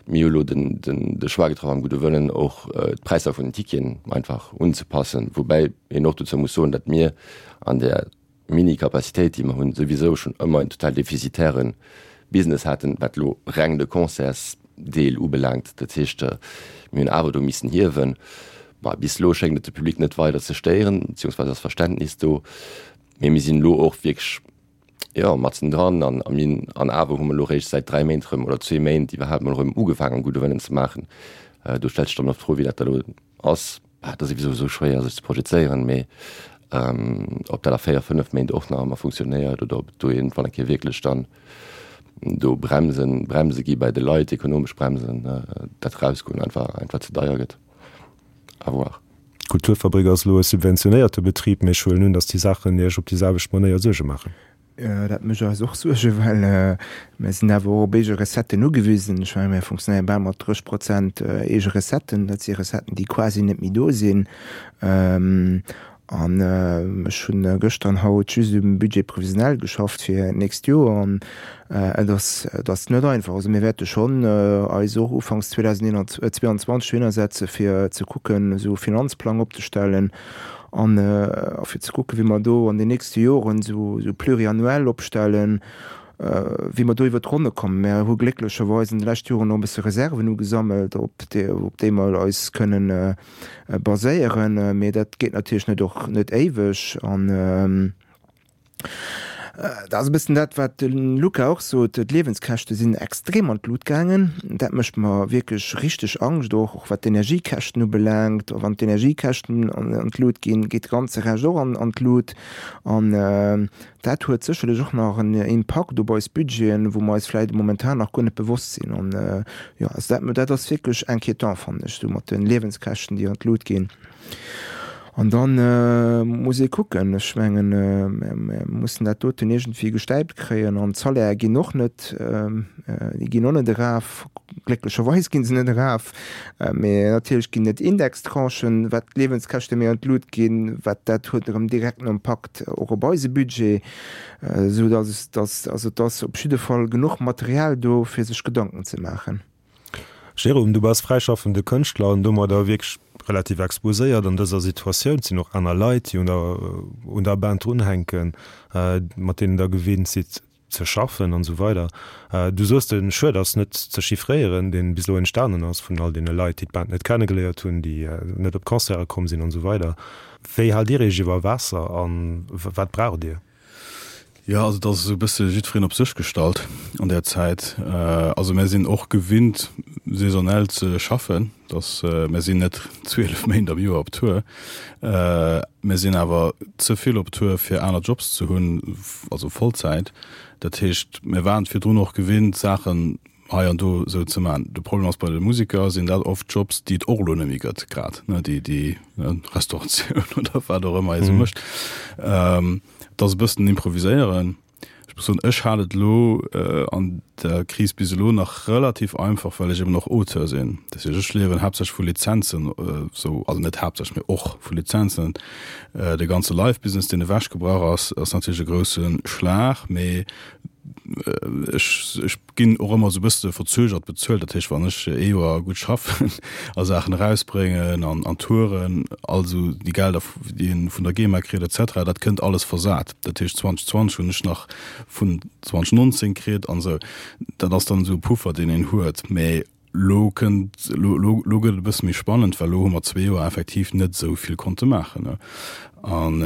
Mir hu lo den de Choix getraff am gudde Wëllen och d'Präisser vun den Ticketen einfach unzepassen, woubäi een och dozou muss soen, datt mir an där Mini-Capacitéit déi mer hunn souwisou schonn ëmmer en total defizitäre Business haten, wat elo reng de Concertsdeel ubelaangt. Dat heescht, mir hunn awer do missen hiewen. Bah, bis elo schéngt et de Public net weider ze stéieren, beziehungsweise ass Verständnis do, mee mir sinn elo och wierklech, Jo, matzen dran. An a mir an awer hu mer elo réischt säit 3 Méint erëm, oder zwee Méint iwwerhaapt mol erëm ugefaangen, gudde Wëllen ze maachen. Do stellt sech dann och d'Fro, wéi dat da elo ass. Bah, et ass souwisou esou schwéier, sech ze projezéieren, mee ob dat a 4, 5 Méint och nach ëmmer funktionéiert oder ob et do iergendwann eng Kéier wierklech dann do Bremsen, Bremse gi bei de Leit, ekonomesch Bremsen, dat Erausgoen einfach, einfach ze deier gëtt. À voir. D'Kulturfabrik ass elo e subventionéierte Betrib, mee ech huelen un, datt déi Saachen Iech op déi selwecht Manéier Suerge maachen. Dat mécht eis och Suergen, well mir sinn awer och op eege Recetten ugewisen. Ech mengen, mir funktionéiere bal mat 30 Prozent eege Recetten. Dat si Recetten, déi quasi net méi do sinn. An ech hunn gëschter an haut just um Budget prévisionnel geschafft fir d'nächst Joer. An et ass, et ass net einfach. Also mir wäerte schonn eis och ufanks 2022 dohinnersetze fir ze kucken, esou e Finanzplang opzestellen an fir ze kucken, wéi mer do an den nächste Joren esou pluriannuel opstellen, wéi mer do iwwert d'Ronne kommen. Mir hu glécklecherweis an de leschte Joren och e bësse Reserven ugesammelt, op déi mer eis kënnen baséieren, mee dat geet natierlech net och net éiweg. An dat ass e bëssen dat, wat de Luca och sot, d'Liewenskäschte sinn extrem an d'Lut gaangen. Dat mécht mer wierklech richteg Angscht, och och wat d'Energiekäschten ubelaangt. Wann d'Energiekäschten an d'Lut ginn, geet de ganze Rescht och an d'Lut. An Dat huet sécherlech och nach en Impakt op eis Budgeten, wou mer eis vläicht momentan nach guer net bewosst sinn. An, jo, also dat, dat ass wierklech inquiétant, fannen ech, esou mat de Liewenskäschten, déi an d'Lut ginn. An da muss ee kucken, ech mengen, mir mussen dat doten iergendwéi gestäipt kréien. An d'Salaire ginn och net, déi ginn och net eraf, glécklecherweis gi se net eraf. Mee natierlech ginn et Indextranchen, wat d'Liewenskäschte méi an d'Lut ginn, wat dat huet erëm direkten Impakt och op eise Budget, esou datt datt also et ass op jidde Fall genuch Material do fir sech Gedanken ze maachen. Jérôme, du bass fräischaffende Kënschtler an domadder wierklech relativ exposéiert an dëser Situatioun. Et sinn och aner Leit, déi un der un der Band drunhänken, mat deenen der gewinnt sidd ze schaffen an esou weider. Du soos, de Schued ass net ze chiffréieren, deen bis elo entstanen ass vun all deene Leit, déi d'Band net kennegeléiert hunn, déi net op d'Concerte komm sinn an esou weider. Wéi haalt Dir Iech iwwer Waasser a wat braucht Dir? Jo, also et ass esou e bësse jiddwereen op sech gestallt an där Zäit. Also mär sinn och gewinnt saisonell ze schaffen. Dass mär sinn net 12 Méint am Joer op Tour. Mär sinn awer ze vill op Tour fir aner Jobs ze hunn, also Vollzäit. Dat heescht, mär waren et virdrun och gewinnt, Saachen hei an do esou ze maachen. De Problem ass, bei de Museker sinn dat oft Jobs, déi et och elo net méi gëtt grad, ne, déi déi Restauratioun oder wat och ëmmer ee sou mécht. Et ass e bëssen improviséieren. Ech muss soen, ech hat et elo an der Kris bis elo nach relativ einfach, well ech eben och Auteur sinn. Dat heescht, ech liewen haaptsächlech vu Lizenzen, esou, also net haaptsächlech, mee och vu Lizenzen. De ganze Live-Business, deen ewechgebrach ass, ass natierlech e grousse Schlag, mee ech, ech ginn och ëmmer esou e bësse verzögert bezuelt. Dat heescht, wann ech ee Joer gutt schaffen a Saachen erausbréngen an an Touren, all esou déi Gelder, déi een vun der GEMA kritt et cetera, dat kënnt alles versat. Dat heescht, 2020 hunn ech nach vun 2019 kritt an esou. Dat ass dann esou e Puffer, deen een huet. Mee Lo kënnt, lo, lo, lo gëtt et e bësse méi spannend, well lo hu mer zwee Joer effektiv net esou vill konnte maachen, ne. An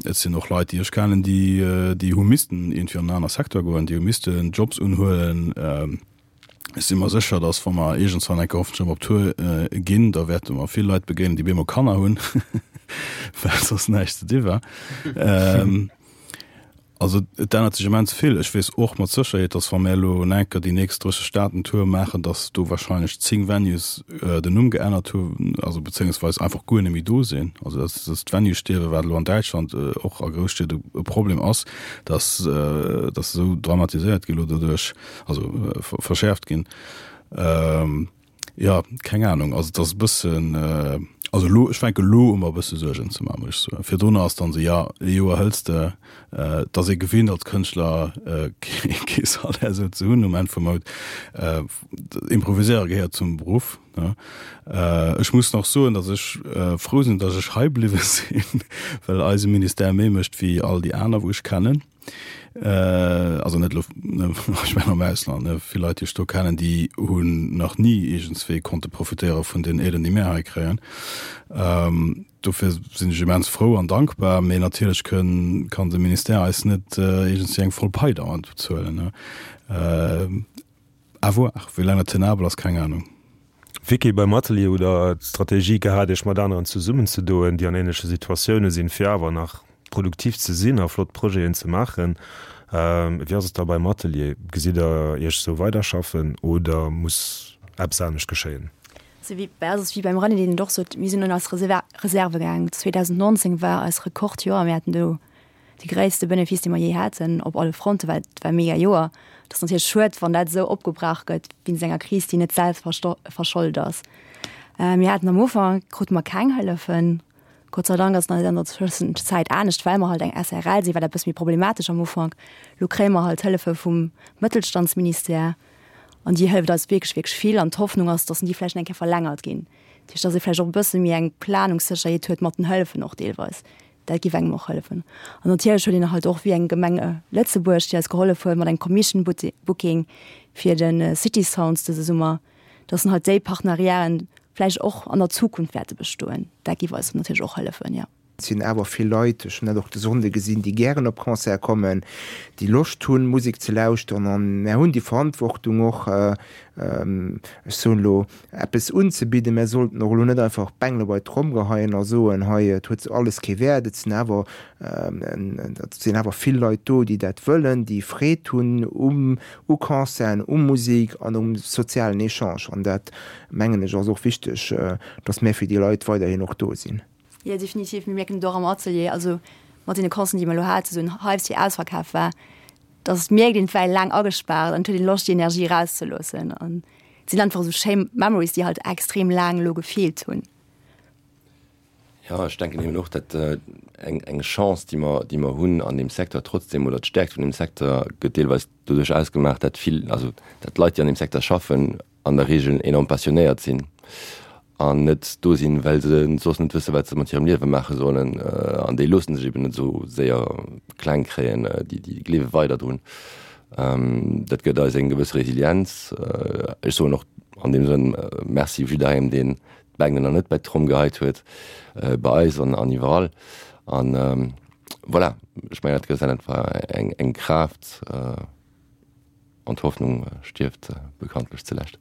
et sinn och Leit, déi ech kennen, déi, déi hu missten iergendwéi an en aner Secteur goen, déi hu missten Jobs unhuelen. Ech si mer sécher, datt wa mer iergendswann eng Kéier hoffentlech erëm op Tour ginn, da wäerte mer vill Leit begéinen, déi bemol Kanner hunn, well soss näischt ze di war. Also et ännert sech immens vill. Ech weess och mat Sécherheet, datt wa mär elo enker déi nächst 30 Staaten Tour maachen, datt do wahrscheinlech 10 Venues den Numm geännert hunn, also bezéiungsweis einfach guer net méi do sinn. Also datt datt d'Venue-Stierwe, wat elo an Däitschland och a Grousstied e Problem ass, datt datt esou dramatiséiert gi lo doduerch, also verschäerft ginn. Jo, keng Ahnung. Also et ass e bëssen, also elo, ech fänke elo u mer e bësse Suergen ze maachen, muss ech soen. Virdrunner ass dann esou, jo, ee Joer hëls de, et ass ee gewinnt als Kënschtler kee Salaire esou ze hunn um Enn vum Mount. Improviséiere gehéiert zum Beruff, ne. Ech muss nach soen, datt ech frou sinn, datt ech hei bliwwe sinn, well eise Ministère méi mécht wéi all déi aner wou ech kennen. Also net elo, ech mengen am Ausland, ne, vill Leit, déi ech do kennen, déi hunn nach ni iergendswéi konnte profitéiere vun den Aiden, déi mär hei kréien. Dofir sinn ech immens frou an dankbar, mee natierlech kënn, kann de Ministère eis net iergendswéi eng voll Pai dauernd bezuelen, ne. À voir, wéi laang dat tenabel ass, keng Ahnung. Vicky, beim Atelier hutt der d'Strategie gehat, Iech mat aneren zesummenzedoen, déi an ähnleche Situatioune sinn, fir awer nach produktiv ze sinn a flott Projeten ze maachen. Wéi ass et da beim Atelier? Gesitt der Iech esou weiderschaffen oder muss eppes anescht geschéien? Also wéi bei eis ass et wéi beim René, deen et och sot, mir sinn un eis Reserve gaangen. 2019 war eis Rekordjoer, mir haten do. de gréisste Benefice, dee mer jee haten, op alle Fronten, well et war e mega Joer. Et ass natierlech schued, wann dat esou opgebrach gëtt wéinst enger Kris, déi net selwer verschold ass. Mir haten am Ufank, krute mer keng Hëllefen. Gott sei Dank ass et an der Tëschenzäit anescht, well mer halt eng SRL sinn, war dat e bësse méi problematesch am Ufank. Elo kréie mer halt Hëllefe vum Mëttelstandsministère an déi hëlleft eis wierklech, wierklech vill. An d'Hoffnung ass, datt déi vläicht eng Kéier verlängert ginn. Dat heescht, datt ee vläicht och e bësse méi eng Planungssécherheet huet mat den Hëllefen och deelweis. Dat géif engem och hëllefen. An natierlech huet een halt och wéi eng Gemeng Lëtzebuerg, déi eis gehollef huet mat engem Commission Booking fir de City Sounds dëse Summer, dass en halt déi Partenariaten vläicht och an der Zukunft wäerte bestoen. Dat géif eis natierlech och hëllefen, jo. Et sinn awer vill Leit, ech hunn dat och de Sonnde gesinn, déi gären op Concerte kommen, déi Loscht hunn, Musek ze lauschteren. An mär hunn déi Verantwortung och, ech soen elo, eppes unzebidden. Mär sollten och elo net einfach d'Bengele bei d'Tromm geheien a soen, hei, et huet alles kee Wäert. Et sinn awer, et sinn awer vill Leit do, déi dat wëllen, déi Freed hunn um u Concerten, u Musek an um sozialen Echange. An dat, mengen ech, ass och wichteg, dass mär fir déi Leit weiderhin och do sinn. Jo, definitiv. Mir mierken et och am Atelier, also mat deene Concerten, déi mer elo haten, esou en Hype, déi ausverkaf war, dass et mierkt een, et war ee laang agespaart an et huet een Loscht, déi Energie erauszeloossen. An et sinn einfach esou schéi Memories, déi halt extrem laang elo gefeelt hunn. Jo, ech denken eben och, dat eng eng Chance, déi mer, déi mer hunn an deem Secteur trotzdem, oder d'Stärkt vun deem Secteur gëtt deelweis doduerch ausgemaach, dat vill, also dat d'Leit, déi an deem Secteur schaffen, an der Regel enorm passionéiert sinn an net do sinn, well se soss net wësse wat se mat hirem Liewe maache sollen. An déi loosse sech eben net esou séier kleng kréien, déi, déi gleewe weider drun. Dat gëtt eis eng gewëss Resilienz. Ech soen och an deem Sënn Merci jidderengem, deen d'Bengel nach net bei d'Tromm geheit huet, bei eis an iwwerall. An voilà, ech mengen dat gëtt einfach eng eng Kraaft an d'Hoffnung stierft bekanntlech zulescht.